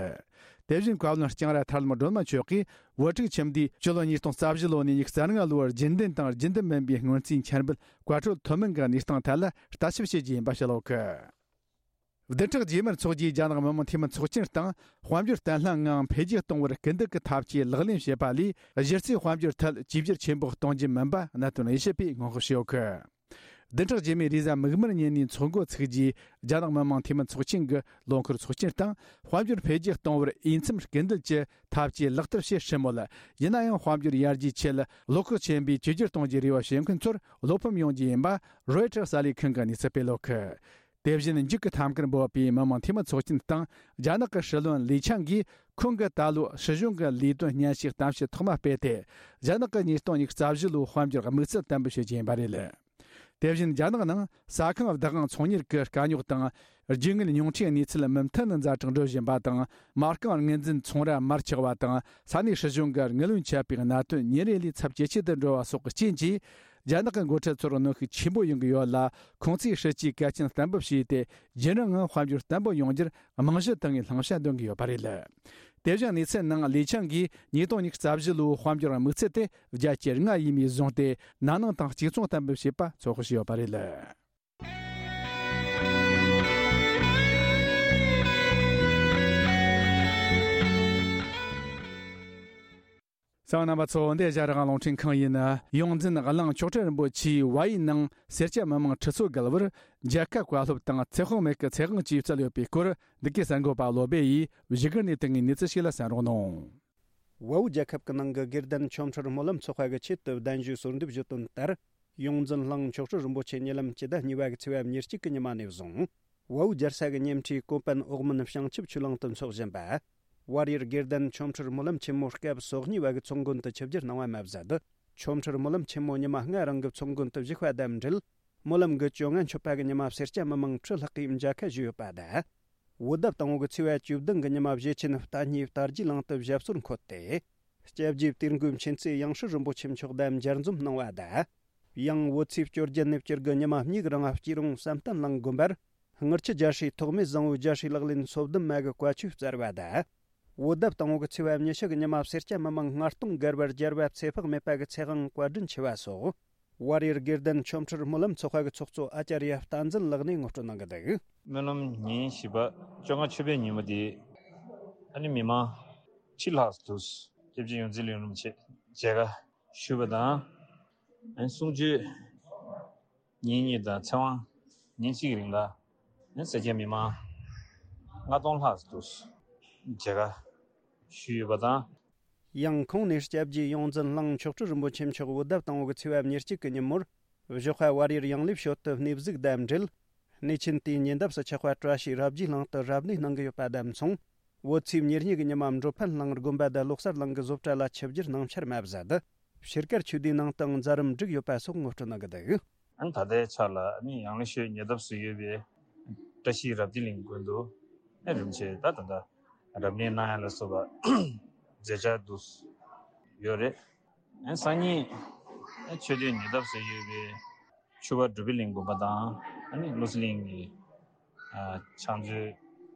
དེ་བཞིན་བཀའ་བློན་ལྕང་ར་ཐར་ལམ་སྒྲོལ་མ་མཆོག་གིས་བོད་ཕྲུག་ཁྱིམ་སྡེས་སྤྱི་ལོ་ཉིས་སྟོང་རྩ་བཞི་ལོ་ནས་ཉི་ཤུ་རྩ་ལྔ་ལོར་རྒྱུན་ལྡན་དང་རྒྱུན་ལྡན་མིན་པའི་སྔོན་རྩིས་འཆར་འབུལ་བཀའ་འཁྲོལ་ཐོབ་མིན་གྱི་གནས་སྟངས་ཐད་ལ་ལྟ་ཞིབ་བྱེད་རྒྱུ་ཡིན་པ་བཤད་ཡོད་གི། བདུན་ཕྲག་རྗེས་མར་འཚོགས་རྒྱུའི་རྒྱ་ནག་མི་དམངས་འཐུས་མི་ཚོགས་ཆེན་སྟེང་དཔལ་འབྱོར་བརྟན་ལྷིང་ངང་འཕེལ་རྒྱས་གཏོང་བར་སྐུལ་འདེད་ཀྱི་ཐབས་ཇུས་ལག་ལེན་བྱེད་པ་ལས། གཞི་རྩའི་དཔལ་འབྱོར་ཐད་བཅོས་བསྒྱུར་ཆེན་པོ་གཏོང་རྒྱུ་མིན་པ་གནད་དོན་དབྱེ་ཞིབ་པས་སྔོན་དཔག་བྱས་ཡོད་གི། བདུན་ཕྲག་རྗེས་མའི་རེས་གཟའ་མིག་དམར་ཉིན་ནས་འཚོགས་འགོ་ཚུགས་རྒྱུའི་རྒྱ་ནག་མི་དམངས་འཐུས་མི་ཚོགས་ཆེན་གྱི་ལོ་འཁོར་ཚོགས་ཆེན་སྟེང་དཔལ་འབྱོར་འཕེལ་རྒྱས་གཏོང་བར་འོས་འཚམ་སྐུལ་འདེད་ཀྱི་ཐབས་ཇུས་ལག་བསྟར་བྱེད་སྲིད་མོད། ཡིན་ན་ཡང་དཔལ་འབྱོར་ཡར་རྒྱས་ཆེད་བློ་ཁོག་ཆེན་པོས་བཅོས་བསྒྱུར་གཏོང་རྒྱུའི་རེ་བ་བྱེད་མཁན་ཚོར་བློ་ཕམ་ཡོང་རྒྱུ་ཡིན་པ་རོའི་ཊར་གསར་ལས་ཁང་གིས་གནས་ཚུལ་སྤེལ་ཡོད་གི། དེ་བཞིན་འཇིགས་སྐུལ་ཐབས་མཁར་འབོད་པའི་མི་དམངས་འཐུས་མི་ཚོགས་ཆེན་སྟེང་རྒྱ་ནག་གི་སྲིད་བློན་ལི་ཆང་གིས་ཁོང་གིས་ད་ལོ་སྲིད་གཞུང་གི་ལས་དོན་སྙན་ཞུའི་གཏམ་བཤད་ཐོག་མ་སྤེལ་ཏེ། རྒྱ་ནག་གིས་ཉིས་སྟོང་ཉི་ཤུ་རྩ་བཞི་ལོའི་དཔལ་འབྱོར་དམིགས་ཚད་བརྟན་པོ་བྱེད་རྒྱུ་ཡིན་པ་རེད། དེ་བཞིན་རྒྱ་ནག་ནང་ས་ཁང་བདག་དབང་ཚོང་གཉེར་གྱི་དཀའ་རྙོག་དང་། རྒྱུ་དངོས་ཉུང་འཕྲིའི་གནས་ཚུལ་མུ་མཐུད་ནས་ཛ་དྲག་འགྲོ་བཞིན་པ་དང་། མ་རྐང་ངོས་འཛིན་ཚོང་ར་མར་ཆག་པ་དང་། ས་གནས་སྲིད་གཞུང་གིས་དངུལ་བུན་ཆད་པའི་གནད་དོན་ཉིན་རེ་ལས་ཚབས་ཇེ་ཆེ་དུ་འགྲོ་བ་སོགས་ཀྱི་རྐྱེན་གྱིས། རྒྱ་ནག་གི་འགོ་ཁྲིད་ཚོར་གནོན་ཤུགས་ཆེན་པོ་ཡོང་གི་ཡོད་ལ། ཁོང་ཚོས་སྲིད་ཇུས་གལ་ཆེན་གཏན་འབེབས་བྱས་ཏེ། རྒྱུན་རིང་ངང་དཔལ་འབྱོར་བརྟན་པོ་ཡོང་རྒྱུར་རྨང་གཞི་བཏིང་བའི་བླང་བྱ་འདོན་གྱི་ཡོད་པ་རེད། དེ་བཞིན་གནས་ཚུལ་ནང་ལི་ཆང་གིས་ཉིས་སྟོང་ཉི་ཤུ་རྩ་བཞི་ལོའི་དཔལ་འབྱོར་དམིགས་ཚད་དེ་བརྒྱ་ཆ་ལྔ་ཡས་མས་བཟུང་སྟེ། ན་ནིང་དང་གཅིག་མཚུངས་གཏན་འབེབས་བྱས་པ་ཚོད་དཔག་བྱས་ཡོད་པ་རེད། གསན་པ་རྣམ་པ་ཚོ། འདི་ཨེ་ཤ་ཡ་རང་དབང་རླུང་འཕྲིན་ཁང་ཡིན། ཡོངས་འཛིན་གླིང་མཆོག་སྤྲུལ་རིན་པོ་ཆེའི་བ་ཡི་ནང་སེར་སྐྱ་མི་མང་ཁྲི་ཚོ་བརྒལ་བར་རྒྱལ་ཁབ་བཀའ་སློབ་དང་ཚེ་དཔག་མེད་ཀྱི་ཚེ་དབང་བཅས་སྩལ་ཡོད་པའི་སྐོར། འདི་གའི་གསར་འགོད་པ་བློ་སྦེ་ཡིས་བཞུགས་སྒར་ནས་བཏང་བའི་གནས་ཚུལ་ཞིག་ལ་གསན་རོགས་གནང་། བལ་པོའི་རྒྱལ་ཁབ་ཀྱི་ནང་གི་དགེ་ལྡན་ཆོ་འཕྲུལ་སྨོན་ལམ་ཚོགས་པ་གི་ཆེད་དུ་གདན་ཞུའི་གསོལ་འདེབས་ཞུས་དོན་ལྟར། ཡོངས་འཛིན་གླིང་མཆོག་སྤྲུལ་རིན་པོ་ཆེ་ཉེ་ལམ་སྤྱི་ཟླ་གཉིས་པ་གི་ཚེས་པ་ཉེར་གཅིག་གི་ཉི་མ་ནས་བཟུང་། བལ་པོའི་རྒྱལ་ས་གི་ཉེ་འཁྲིས་ཀོ་པན་ཨོག་མོན་བྱང་ཆུབ་ཆོས་གླིང་དུ་འཚོགས་བཞིན་པ། བལ་ཡུལ་དགེ་ལྡན་ཆོ་འཕྲུལ་སྨོན་ལམ་ཆེན་མོ་སྐབས་སོ་གཉིས་པ་གི་ཚོགས་མགོན་དུ་ཆིབས་བསྒྱུར་གནང་བ་མ་ཟད། ཆོ་འཕྲུལ་སྨོན་ལམ་ཆེན་མོ་ཉི་མ་ལྔ་རིང་གི་ཚོགས་མགོན་དུ་བཞུགས་པ་དང་འབྲེལ། སྨོན་ལམ་གྱི་བཅོ་ལྔ་མཆོད་པ་གི་ཉི་མ་སེར་སྐྱ་མི་མང་ཁྲི་ལྷག་གིས་མཇལ་ཁ་ཞུས་ཡོད་པ་དང་། བོད་ཟླ་དང་པོ་གི་ཚེས་པ་བཅུ་བདུན་གི་ཉི་མ་བཞེས་ཆེན་རྟ་སྙེ་རྟ་རྒྱས་གླིང་དུ་ཞབས་སོར་འཁོད་དེ། སྐྱབས་རྗེ་དིལ་མགོའི་མཁྱེན་བརྩེ་ཡང་སྲིད་རིན་པོ་ཆེ་མཆོག་དང་མཇལ་འཛོམས་གནང་བ་དང་། ཡང་བོད་ཚེས་བཅོ་བརྒྱད་ནས་བཅུ་དགུ་ཉི་མ་གཉིས་ཀྱི་རིང་སྐྱིད་རོང་བསམ་གཏན་གླིང་དགོན་པར། དངུལ་ཆུ་རྒྱ་ཧྲིལ་ཐོགས་མེད་བཟང་པོའི་རྒྱ་ཧྲིལ་ལག་ལེན་སོ་བདུན་མ་གི་བཀའ་ཆོས་སྩལ་བ་དང་། བོད་ཟླ་དང་པོ་གི་ཚེས་པ་ཉི་ཤུ་གི་ཉི་མ་སེར་སྐྱ་མི་མང་ལྔ་སྟོང་བརྒལ་བར་རྒྱལ་བ་ཚེ་དཔག་མེད་པ་གི་ཚེ་དབང་བཀའ་དྲིན་ཆེ་བ་སོགས། བལ་ཡུལ་དགེ་ལྡན་ཆོ་འཕྲུལ་སྨོན་ལམ་ཚོགས་པ་གི་ཚོགས་གཙོ་ཨ་ཙརྱ་བསྟན་འཛིན་ལགས་ནས་ངོ་སྤྲོད་གནང་གི་འདུག། སྨོན་ལམ་ཉིན་བཞི་པ་བཅོ་ལྔ་མཆོད་པའི་ཉིན་མོ་དེ། ཨ་ནི་མི་མང་ཁྲི་ལྷག་འདུག། སྐྱབས་རྗེ་ཡོངས་འཛིན་གླིང་རིན་པོ་ཆེ་མཇལ་ཁ་ཞུས་པ་དང་། ཨ་ནི་གསུང་ཆོས་ཉིན་གཉིས་དང་ཚེ་དབང་ཉིན་གཅིག་གི་རིང་ལ། ཨ་ནི་སེར་སྐྱ་མི་མང་ལྔ་སྟོང་ལྷག་འདུག། མཇལ་ཁ་ཞུས་ཡོད་པ་དང་། ཡང་ཁོང་ནས་སྐྱབས་རྗེ་ཡོངས་འཛིན་གླིང་མཆོག་སྤྲུལ་རིན་པོ་ཆེ་མཆོག་བོད་ཟླ་དང་པོ་གི་ཚེས་པ་ཉེར་གཅིག་གི་ཉིན་མོར། ། བཞི་པ་བར་ཡུལ་ཡང་ལེ་ཞོལ་དུ་གནས་གཟིགས་དང་འབྲེལ། གནས་ཆེན་དེའི་ཉེ་འདབས་སུ་ཆགས་པ་བཀྲ་ཤིས་རབ་རྒྱས་གླིང་དུ་རབ་གནས་གནང་གི་ཡོད་པ་དང་མཚུངས། བོད་ཚེས་ཉེར་གཉིས་ཀྱི་ཉི་མ་འགྲོ་ཕན་གླིང་དགོན་པ་དང་ལོ་གསར་གླིང་གི་བཟོ་གྲྭ་ལ་ཆིབས་བསྒྱུར་གནང་འཆར་མ་ཟད། ཕྱིར་ཀར་ཆོས་སྡེའི་ནང་དུའང་མཛད་རིམ་བསྒྲིགས་ཡོད་པ་སོགས་ངོ་སྤྲོད་གནང་གི་འདུག། ཨ་ནི་ད་ལྟའི་ཆར་ལ་ཨ་ནི་ཡང་ལེ་ཤོད་ཉེ་འདབས་སུ་ཡོད་པའི་བཀྲ་ཤིས་རབ་རྒྱས་གླིང་དགོན་དུ་ཨ་རིམ་བྱས་ད་ད་ལྟ་རབ་གནས་གནང་ཡ་ལ་སོགས་པ་མཛད་འཆར་འདུག་ཡོད་རེད། ཨ་སང་ཉིན་ཨ་ཆོས་སྡེ་ཉེ་འདབས་སུ་ཡོད་པའི་ཆུ་བ་སྒྲུབ་པའི་གླིང་དགོན་པ་དང་ཨ་ནི་བློ་གསལ་གླིང་གི་ཨ་ཕྱག་མཛོད་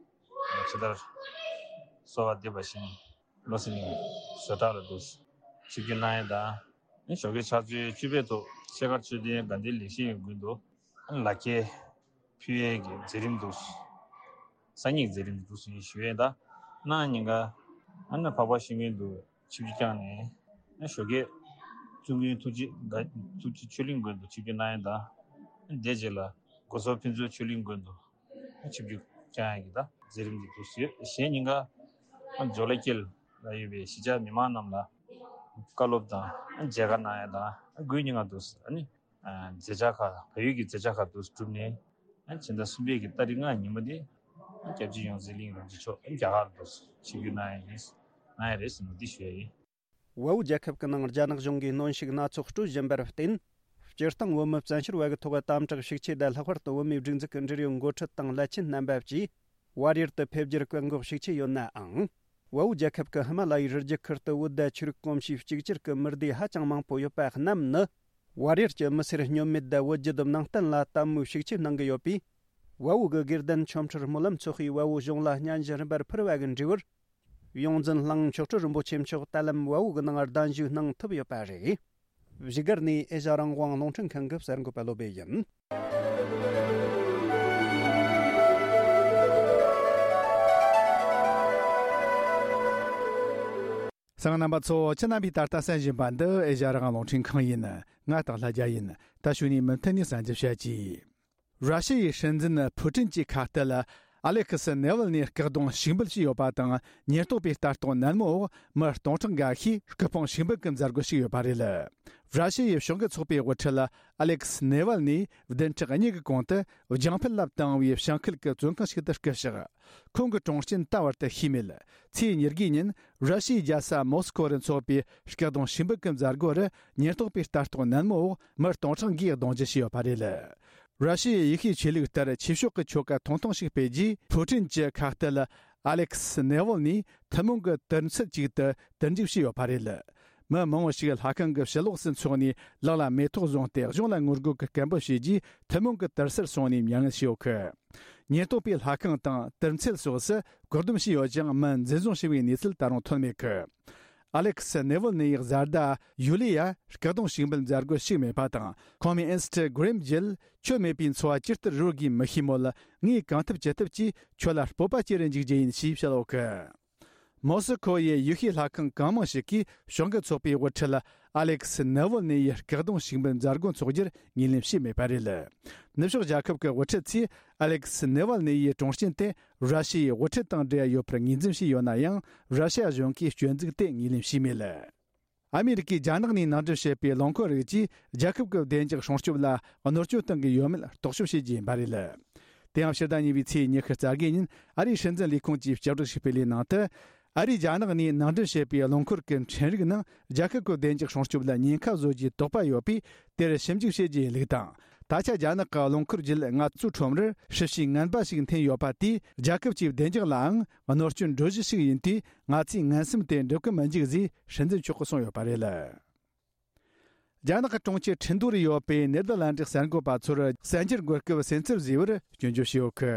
ཇི་ལྟར་གསོལ་བ་འདེབས་པ་བཞིན། བློ་གསལ་གླིང་བཟོ་གྲྭ་ལ་འདུག་ཆིབས་བསྒྱུར་གནང་ཡས་དང་། ཞོགས་ཀའི་ཕྱག་ཚོད་བཅུ་པའི་ཐོག་ཤེལ་དཀར་མཆོད་རྟེན་དགའ་ལྡན་ལེགས་བཤད་ཡོན་དགོན་དུ་ལག་འཁྱེར་ཕུལ་ཡས་ཀྱི་མཛད་རིམ་འདུག་སང་ཉིན་མཛད་རིམ་འདུག་ཟེར་ཞུ་ཡས་དང་། གནངས་ཉིན་ཀ་ཨ་ནི་འཕགས་པ་ཤིང་ཀུན་དུ་ཆིབས་བསྒྱུར་བསྐྱངས་ནས། ཞོགས་ཀའི་བཙུན་དགོན་ཐུགས་རྗེ་དགའ་ཐུགས་རྗེ་ཆོས་གླིང་དགོན་དུ་ཆིབས་བསྒྱུར་གནང་ཡས་དང་། དེ་རྗེས་ལ་སྒོ་ཟོག་ཕུན་ཚོགས་ཆོས་གླིང་དགོན་དུ་ཆིབས་བསྒྱུར་བསྐྱངས་ཡས་ཀྱི་ད་མཛད་རིམ་འདི་འདུག་ཟེར། གཞན་ཉིན་ཀ་ཇོ་ལ་ཀིལ་ལ་ཡོད་པའི་གཞིས་ཆགས་མི་མང་རྣམས་ལ་བཀའ་སློབ་དང་མཇལ་ཁ་གནང་ཡས་དང་། དགུའི་ཉིན་ཀ་འདུག་ཟེར་ཨ་ནི་མཛད་འཆར་ཁག་བལ་ཡུལ་གྱི་མཛད་འཆར་ཁག་འདུག་གྲུབ་ནས། ཕྱི་ཟླ་གསུམ་པའི་གི་ཏ་རིག་ལྔ་ཉིན་མོ་དེ་སྐྱབས་རྗེ་ཡོངས་འཛིན་གླིང་རིན་པོ་ཆེ་མཆོག་རྒྱ་གར་དུ་ཆིབས་བསྒྱུར་གནང་ཡས་ཡིན། གནང་ཡས་རེད་ཟེར་ནས་འདི་ཞུ་ཡས་ཡིན། བལ་པོ་རྒྱལ་ཁབ་ཀྱི་ནང་རྒྱ་ནག་གཞུང་གིས་གནོན་ཤུགས་སྣ་ཚོགས་སྤྲོད་བཞིན་པར་བརྟེན། སྤྱིར་བཏང་བོད་མི་བཙན་བྱོལ་བ་གི་ཐོག་དམ་དྲག་ཤུགས་ཆེ་དང་། ལྷག་པར་དུ་བོད་མིའི་སྒྲིག་འཛུགས་ཀྱི་འབྲེལ་ཡོད་འགོ་ཁྲིད་དང་བླ་ཆེན་རྣམ་པ་བཅས་བལ་ཡུལ་དུ་ཕེབས་རྒྱུར་བཀག་འགོག་ཤུགས་ཆེ་ཡོད་ནའང་། བལ་པོ་རྒྱལ་ཁབ་ཀྱི་ཧི་མ་ལ་ཡའི་རི་རྒྱུད་ཁུལ་དུ་བོད་དང་ཆོས་རིག་གོམས་གཤིས་གཅིག་གྱུར་གྱི་མི་སྡེ་ཧ་ཅང་མང་པོ་ཡོད་པ་རྣམས་ནི། བལ་ཡུལ་གྱི་མི་སེར་སྨྱོན་མེད་དང་བོད་བརྒྱུད་ནང་བསྟན་ལ་དད་མོས་ཤུགས་ཆེ་གནང་གི་ཡོད་པས། བལ་པོ་གི་དགེ་ལྡན་ཆོ་འཕྲུལ་སྨོན་ལམ་ཚོགས་པས་བལ་པོ་གཞུང་ལ་སྙན་ཞུ་རིམ་པར་ཕུལ་བ་གི་འབྲས་བུར། ཡོངས་འཛིན་གླིང་མཆོག་སྤྲུལ་རིན་པོ་ཆེ་མཆོག་ད་ལམ་བལ་པོ་གི་ནང་གདན་ཞུ་གནང་ཐུབ་ཡོད་པ་རེད། བཞུགས་སྒར་ནས་ཨེ་ཤ་རང་དབང་རླུང་འཕྲིན་ཁང་གི་གསར་འགོད་པ་བློ་བྷེ་ཡིན། གསན་མཁན་རྣམ་པ་ཚོ། ཁྱེད་རྣམ་པས་ད་ལྟ་གསན་བཞིན་པ་འདི་ཨེ་ཤ་རང་དབང་རླུང་འཕྲིན་ཁང་ཡིན། ང་སྟག་ལྷ་རྒྱལ་ཡིན། ད་གཞུག་ནས་མུ་མཐུད་ནས་གསན་རྒྱུ་བྱ་གྱིས། ར་ཤི་ཡའི་སྲིད་འཛིན་ཕུ་ཀྲིན་གྱི་ཁ་གཏད་ཨ་ལེ་ཁི་སི་ནེ་ཝལ་ནི་སྐུ་གདུང་ཞུགས་འབུལ་བྱས་ཡོད་པ་དང་། ཉེན་རྟོག་པའི་ལྟ་རྟོག་ནན་མོའི་འོག་མི་སྟོང་ཕྲག་འགའ་ཤས་སྐུ་ཕུང་ཞུགས་འབུལ་གྱི་མཛད་སྒོ་ཞུགས་ཡོད་པ་རེད། ར་ཤི་ཡའི་གཞུང་གི་ཚོགས་པའི་དབུ་ཁྲིད་ཨ་ལེ་ཁི་སི་ནེ་ཝལ་ནི་བདུན་ཕྲག་གཉིས་ཀྱི་གོང་དུ་རྒྱང་ཕུད་ལ་བཏང་བའི་བྱང་ཁུལ་གྱི་བཙོན་ཁང་ཞིག་ཏུ་སྐུ་གཤེགས། ཁོང་གི་གྲོངས་རྐྱེན་ད་བར་དུ་ཤེས་མེད། ཚེས་ཉེར་དགུའི་ཉིན་ར་ཤི་ཡའི་རྒྱལ་ས་མོ་སི་ཁོ་རུ་འཚོགས་པའི་སྐུ་གདུང་ཞུགས་འབུལ་གྱི་མཛད་སྒོ་རུ་ཉེན་རྟོག་པའི་ལྟ་རྟོག་ནན་མོའི་འོག་མི་སྟོང་ཕྲག་འགའི་གདུང་རྒྱུད་བྱས་ཡོད་པ་རེད། ར་ཤི་ཡའི་ཡེ་ཤུའི་ཆོས་ལུགས་ལྟར་ཆོས་ཕྱོགས་ཀྱི་ཆོ་ག་ཐུང་ཐུང་ཞིག་སྤེལ་རྗེས། ཕུ་ཀྲིན་གྱི་ཁ་གཏད་ཨ་ལེ་ཁི་སི་ནེ་ཝལ་ནི་ཐུན་མོང་གི་དུར་ཚད་ཅིག་ཏུ་དུར་འཇུག་བྱས་ཡོད་པ་རེད། མི་མང་བོ་ཞིག་ལྷ་ཁང་གི་ཕྱི་ལོགས་སུ་འཚོགས་ནས་ལག་ལ་མེ་ཏོག་བཟུང་སྟེ་གཞུང་ལ་ངོ་རྒོལ་གྱི་སྐད་འབོད་བྱས་རྗེས། ཐུན་མོང་གི་དུར་སར་སོང་ནས་མྱ་ངན་བྱས་ཡོད་གི། ཉེན་རྟོག་པས་ལྷ་ཁང་དང་དུར་ཚད་སོགས་སུ་བཀག་སྡོམ་བྱས་ཡོད་ཀྱང་། མི་འཛིན་བཟུང་བྱས་པའི་གནས་ཚུལ་ད་རུང་ཐོན་མེད་གི། ཨ་ལེ་ཁི་སི་ནེ་ཝལ་ནི་ཡི་བཟའ་ཟླ་ཡུ་ལི་ཡ་སྐུ་གདུང་ཞུགས་འབུལ་མཛད་སྒོར་ཞུགས་མེད་པ་དང་། ཁོང་མི་ཨིན་སི་ཊ་གྷི་རམ་བརྒྱུད་ཁྱོད་མེད་པའི་འཚོ་བ་ཇི་ལྟར་རོལ་དགོས་མི་ཤེས་མོད། ངས་གང་ཐུབ་ཅི་ཐུབ་ཀྱིས་ཁྱོད་ལ་སྤོབས་པ་སྐྱེ་རུ་འཇུག་རྒྱུ་ཡིན་ཞེས་བཤད་ཡོད་གི། མོ་སི་ཁོ་ཡི་ཡེ་ཤུའི་ལྷ་ཁང་གང་མང་ཞིག་གིས་གཞུང་གི་ཚོགས་པའི་དབུ་ཁྲིད་ཨ་ལེ་ཁི་སི་ནེ་ཝལ་ནི་ཡི་སྐུ་གདུང་ཞུགས་འབུལ་མཛད་སྒོ་འཚོགས་རྒྱུར་ངོས་ལེན་བྱས་མེད་པ་རེད། ནུབ་ཕྱོགས་རྒྱལ་ཁབ་ཀྱི་དབུ་ཁྲིད་ཚོས་ཨ་ལེ་ཁི་སི་ནེ་ཝལ་ནི་ཡི་གྲོངས་རྐྱེན་དེ་ར་ཤི་ཡའི་དབུ་ཁྲིད་དང་འབྲེལ་ཡོད་པར་ངོས་འཛིན་བྱས་ཡོད་ན་ཡང་། ར་ཤི་ཡ་གཞུང་གིས་སྐྱོན་འཛུགས་དེ་ངོས་ལེན་བྱས་མེད། ཨ་མི་རི་ཀས་རྒྱ་ནག་ནས་ནང་འདྲེན་བྱས་པའི་རླངས་འཁོར་རིགས་ཀྱིས་རྒྱལ་ཁབ་ཀྱི་བདེ་འཇགས་སྲུང་སྐྱོབ་ལ་གནོད་སྐྱོན་གཏོང་གི་ཡོད་མེད་རྟོག་ཞིབ་བྱེད་རྒྱུ་ཡིན་པ་རེད། དེ་ཡང་ཕྱི་ཟླ་གཉིས་པའི་ཚེས་ཉི་ཤུ་རྩ་དགུ་ཉིན་ཨ་རིའི་སྲིད་འཛིན་ལས་ཁུངས་ཀྱིས་སྤྱི་བསྒྲགས་ཤིག་སྤེལ་བའི་ནང་དུ། ཨ་རིས་རྒྱ་ནག་ནས་ནང་འདྲེན་བྱས་པའི་རླངས་འཁོར་གྱི་འཕྲིན་རིགས་ནང་རྒྱལ་ཁབ་ཀྱི་བདེ་འཇགས་སྲུང་སྐྱོབ་ལ་ཉེན་ཁ་བཟོ་རྒྱུའི་དོགས་པ་ཡོད་པས། དེར་ཞིབ་འཇུག་བྱེད་རྒྱུ་ཡིན་ལུགས་དང་། ད་ཆ་རྒྱ་ནག་གི་རླངས་འཁོར་བརྒྱུད་ང་ཚོའི་ཁྲོམ་རར་ཧྲིལ་བྱའི་ངན་པ་ཞིག་འཐེན་ཡོད་པ་དེས་རྒྱལ་ཁབ་ཀྱི་བདེ་འཇགས་ལའང་གནོད་སྐྱོན་འགྲོ་གཞི་ཞིག་ཡིན་དུས། ང་ཚོས་ངན་སེམས་དེ་འགྲུབ་ཀྱི་མི་འཇུག་ཅེས་སྲིད་འཛིན་མཆོག་གིས་གསུངས་ཡོད་པ་རེད། རྒྱ་ནག་གི་གྲོང་ཁྱེར་ཁྲིན་ཏུའུ་རུ་ཡོད་པའི་ནེ་དར་ལན་ཌི་གསར་འགོད་པ་ཚོར་གསར་འགྱུར་འགོད་སྐབས་སེམས་འཚབ་བཟོས་པར་སྐྱོན་བརྗོད་བྱས་ཡོད་གི།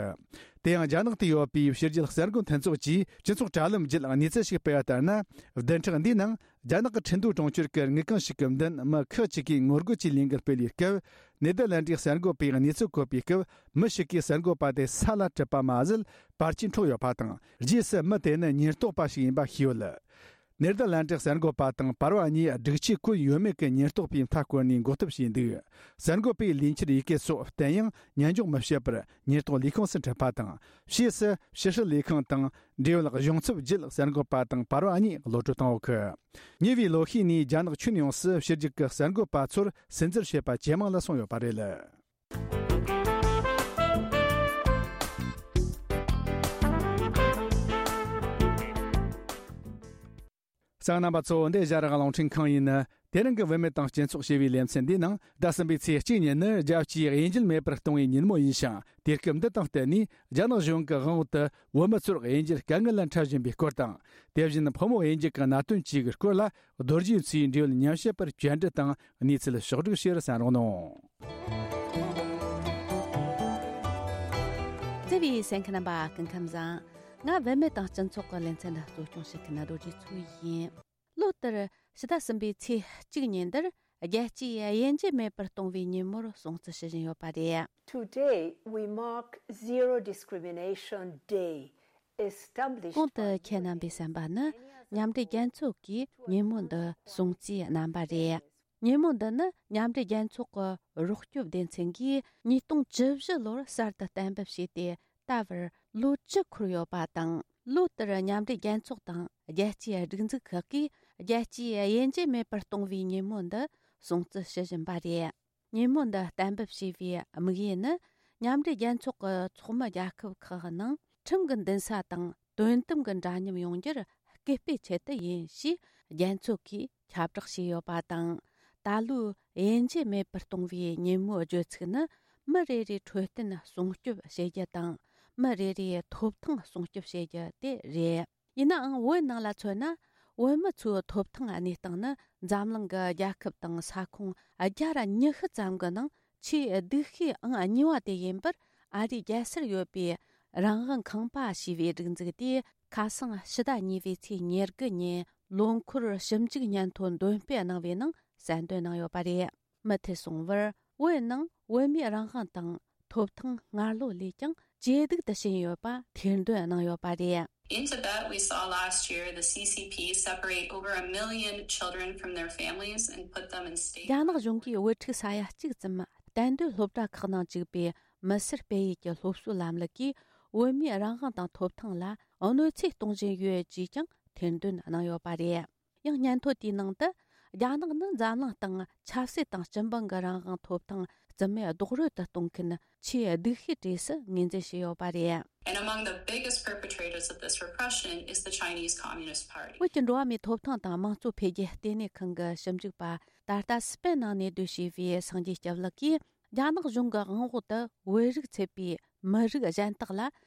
དེ་ཡང་རྒྱ་ནག་ཏུ་ཡོད་པའི་ཕྱི་རྒྱལ་གསར་འགོད་མཐུན་ཚོགས་ཀྱིས་སྤྱི་ཚོགས་དྲ་ལམ་བརྒྱུད་གནས་ཚུལ་ཞིག་སྤེལ་བ་ལྟར་ན། བདུན་ཕྲག་འདིའི་ནང་རྒྱ་ནག་གི་ཁྲིན་ཏུའུ་གྲོང་ཁྱེར་གྱི་དངུལ་ཁང་ཞིག་གི་མདུན་མི་ཁག་ཅིག་གིས་ངོ་རྒོལ་གྱི་ལས་འགུལ་སྤེལ་བའི་སྐབས། ནེ་དར་ལན་ཌིའི་གསར་འགོད་པས་གནས་ཚུལ་འཁོད་པའི་སྐབས། མི་ཞིག་གིས་གསར་འགོད་པ་དེ་ས་ལ་དྲུད་པ་མ་ཟད། པར་ཆས་འཕྲོག་ཡོད་པ་དང་། རྗེས་སུ་མི་དེ་ནི་ཉེན་རྟོག་པ་ཞིག་ཡིན་པ་ཤེས་ཡོད། ནེ་དར་ལན་ཀྲིག་གསར་འགོད་པ་དང་པར་བ་གཉིས་སྒྲིག་ཆས་གོན་ཡོད་མེད་ཀྱི་ཉེན་རྟོག་པས་མཐའ་བསྐོར་ནས་འགོག་ཐབས་བྱས་འདུག་གསར་འགོད་པས་ལས་འཁྱུར་ཡི་གེ་སོགས་བསྟན་ཡང་ཉན་འཇོག་མི་བྱེད་པར་ཉེན་རྟོག་ལས་ཁུངས་སུ་འཁྲིད་པ་དང་། ཕྱིས་སུ་ཕྱི་སྲིད་ལས་ཁང་དང་འབྲེལ་ཡོད་གཞུང་ཚབ་བརྒྱུད་གསར་འགོད་པ་དང་པར་བ་གཉིས་གློད་གྲོལ་བཏང་ཡོད་གི། ཉེ་བའི་ལོ་ཤས་ནས་རྒྱ་ནག་ཁྱོན་ཡོངས་སུ་ཕྱི་རྒྱལ་གྱི་གསར་འགོད་པ་ཚོར་སུན་གཙེར་བྱེད་པ་ཇེ་མང་ལ་སོང་ཡོད་པ་རེད། གསན་མཁན་རྣམ་པ་ཚོ། འདི་ཨེ་ཤ་ཡ་རང་དབང་རླུང་འཕྲིན་ཁང་ཡིན། དེ་རིང་གི་བུད་མེད་དང་སྤྱི་ཚོགས་ཞེས་པའི་ལེ་ཚན་འདིའི་ནང་ཟླ་གསུམ་པའི་ཚེས་གཅིག་ཉིན་ནི་རྒྱལ་སྤྱིའི་དབྱེ་འབྱེད་མེད་པར་གཏོང་བའི་ཉིན་མོ་ཡིན་ཞིང་། དུས་སྐབས་འདི་དང་བསྟུན་ནས་རྒྱ་ནག་གཞུང་གི་དབང་འོག་ཏུ་བོད་མི་ཚོར་དབྱེ་འབྱེད་དཀའ་ངལ་ལ་འཕྲད་བཞིན་པའི་སྐོར་དང་། དེ་བཞིན་ཕོ་མོ་དབྱེ་འབྱེད་ཀྱི་གནད་དོན་བཅས་ཀྱི་སྐོར་ལ་རྡོ་རྗེ་མཚོའི་འབྲེལ་ཡོད་ཉམས་ཞིབ་པར་བཅར་འདྲི་དང་གནས་ཚུལ་ཕྱོགས་བསྒྲིགས་བྱས་ར་གསན་རོགས་གནང་། བརྩེ་བའི་གསན་མཁན་རྣམ་པ་སྐུ་ཁམས་བཟང་། ང་བུད་མེད་དང་སྤྱི་ཚོགས་ཀྱི་ལེ་ཚན་འདི་གཙོ་སྐྱོང་བྱེད་མཁན་རྡོ་རྗེ་མཚོ་ཡིན། ལོ་ལྟར་ཕྱི་ཟླ་གསུམ་པའི་ཚེས་གཅིག་ཉིན་འདིར་རྒྱལ་སྤྱིའི་དབྱེ་འབྱེད་མེད་པར་གཏོང་བའི་ཉིན་མོར་སྲུང་བརྩི་ཞུ་བཞིན་ཡོད་པ་རེད། Today we mark zero discrimination day, established གོང་དུ་ཁྱེད་རྣམ་པས་གསན་པ་ནི་མཉམ་འབྲེལ་རྒྱལ་ཚོགས་ཀྱིས་ཉིན་མོ་འདི་སྲུང་བརྩིའི་རྣམ་པ་རེད། ཉིན་མོ་འདི་ནི་མཉམ་འབྲེལ་རྒྱལ་ཚོགས་ཀྱི་རོགས་སྐྱོབ་སྡེ་ཚན་གྱིས་ཉིས་སྟོང་བཅུ་བཞི་ལོར་གསར་དུ་གཏན་འབེབས་བྱས་ཏེ། ད་བར་ལོ་བཅུ་འཁོར་ཡོད་པ་དང་། ལོ་ལྟར་མཉམ་འབྲེལ་རྒྱལ་ཚོགས་དང་རྒྱལ་སྤྱིའི་སྒྲིག་འཛུགས་ཁག་གིས་རྒྱལ་སྤྱིའི་དབྱེ་འབྱེད་མེད་པར་གཏོང་བའི་ཉིན་མོ་འདི་སྲུང་བརྩི་ཞུ་བཞིན་པ་རེད། ཉིན་མོ་འདི་གཏན་འབེབས་བྱས་པའི་དམིགས་ཡུལ་ནི། མཉམ་འབྲེལ་རྒྱལ་ཚོགས་ཀྱི་ཚོགས་མི་རྒྱལ་ཁབ་ཁག་ནང་ཁྲིམས་ཀྱི་འདུན་ས་དང་དོན་དམ་གྱི་འདྲ་མཉམ་ཡོང་རྒྱུར་སྐུལ་སྤེལ་ཆེད་དུ་ཡིན་ཞེས་རྒྱལ་ཚོགས་ཀྱིས་ཁྱབ་བསྒྲགས་བྱས་ཡོད་པ་དང་། ད་ལོའི་དབྱེ་འབྱེད་མེད་པར་གཏོང་བའི་ཉིན་མོའི་བརྗོད་ཚིག་ནི། མི་རེ་རེའི་འཕྲོད་བསྟེན་སྲུང་སྐྱོབ་བྱེད་རྒྱུ་དང་། མི་རེ་རེའི་ཐོབ་ཐང་སྲུང་སྐྱོབ་བྱེད་རྒྱུ་དེ་རེད། ཡིན་ནའང་། བོད་ནང་ལ་མཚོན་ན། བོད་མི་ཚོའི་ཐོབ་ཐང་གནས་སྟངས་ནི། འཛམ་གླིང་གི་རྒྱལ་ཁབ་དང་ས་ཁོངས་བརྒྱ་ར་ཉི་ཤུ་ཙམ་གྱི་ནང་ཆེས་སྡུག་ཤོས་ཨང་གཉིས་པ་དེ་ཡིན་པར། ཨ་རིའི་རྒྱལ་སར་ཡོད་པའི་རང་དབང་ཁང་པ་ཞེས་པའི་སྒྲིག་འཛུགས་དེས། ཁ་སང་ཕྱི་ཟླ་གཉིས་པའི་ཚེས་ཉེར་དགུ་ཉིན་ལོ་འཁོར་ཞིབ་འཇུག་སྙན་ཐོ་འདོན་སྤེལ་གནང་བའི་ནང་གསལ་འདོན་གནང་ཡོད་པ་རེད། མུ་མཐུད་སོང་བར། བོད་ནང་བོད་མིའི་རང་དབང་དང་ཐོབ་ཐང་སྔར་ལོ་ལས་ཀྱང་ཇེ་སྡུག་ཏུ་ཕྱིན་ཡོད་པ་ཐེར་འདོན་གནང་ཡོད་པ་རེད། In Tibet, we saw last year the C C P separate over a million children from their families and put them in state. རྒྱ་ནག་གཞུང་གིས་བུ་ཕྲུག་ས་ཡ་གཅིག་ཙམ་གཏན་སྡོད་སློབ་གྲྭ་ཁག་ནང་བཅུག་པའི་མི་སེར་སྤེལ་ཡུལ་གྱི་སློབ་གསོའི་ལམ་ལུགས་ཀྱིས་བོད་མིའི་རང་དབང་དང་ཐོབ་ཐང་ལ་གནོད་འཚེ་གཏོང་བཞིན་ཡོད་ཅེས་ཀྱང་ཐེར་འདོན་གནང་ཡོད་པ་རེད། ཡང་སྙན་ཐོ་དེའི་ནང་དུ། རྒྱ་ནག་ནི་འཛམ་གླིང་སྟེང་ཆབ་སྲིད་དང་སྤྱི་འབངས་ཀྱི་རང་དབང་ཐོབ་ཐང་རྩིས་མེད་རྡོག་རོལ་དུ་གཏོང་མཁན་ཆེས་སྡུག་ཤོས་གྲས་སུ་ངོས་འཛིན་བྱས་ཡོད་པ་རེད། And among the biggest perpetrators of this repression is the Chinese Communist Party. བོད་ཀྱི་འགྲོ་བ་མིའི་ཐོབ་ཐང་དང་དམངས་གཙོ་འཕེལ་རྒྱས་ལྟེ་གནས་ཁང་གི་ཞིབ་འཇུག་པ། ད་ལྟ་སི་པན་ནང་གནས་སྡོད་བྱས་པའི་སངས་རྒྱས་སྐྱབས་ལགས་ཀྱིས། རྒྱ་ནག་གཞུང་གི་དབང་འོག་ཏུ་བོད་རིགས་ཚུད་པའི་མི་རིགས་གཞན་དག་ལ་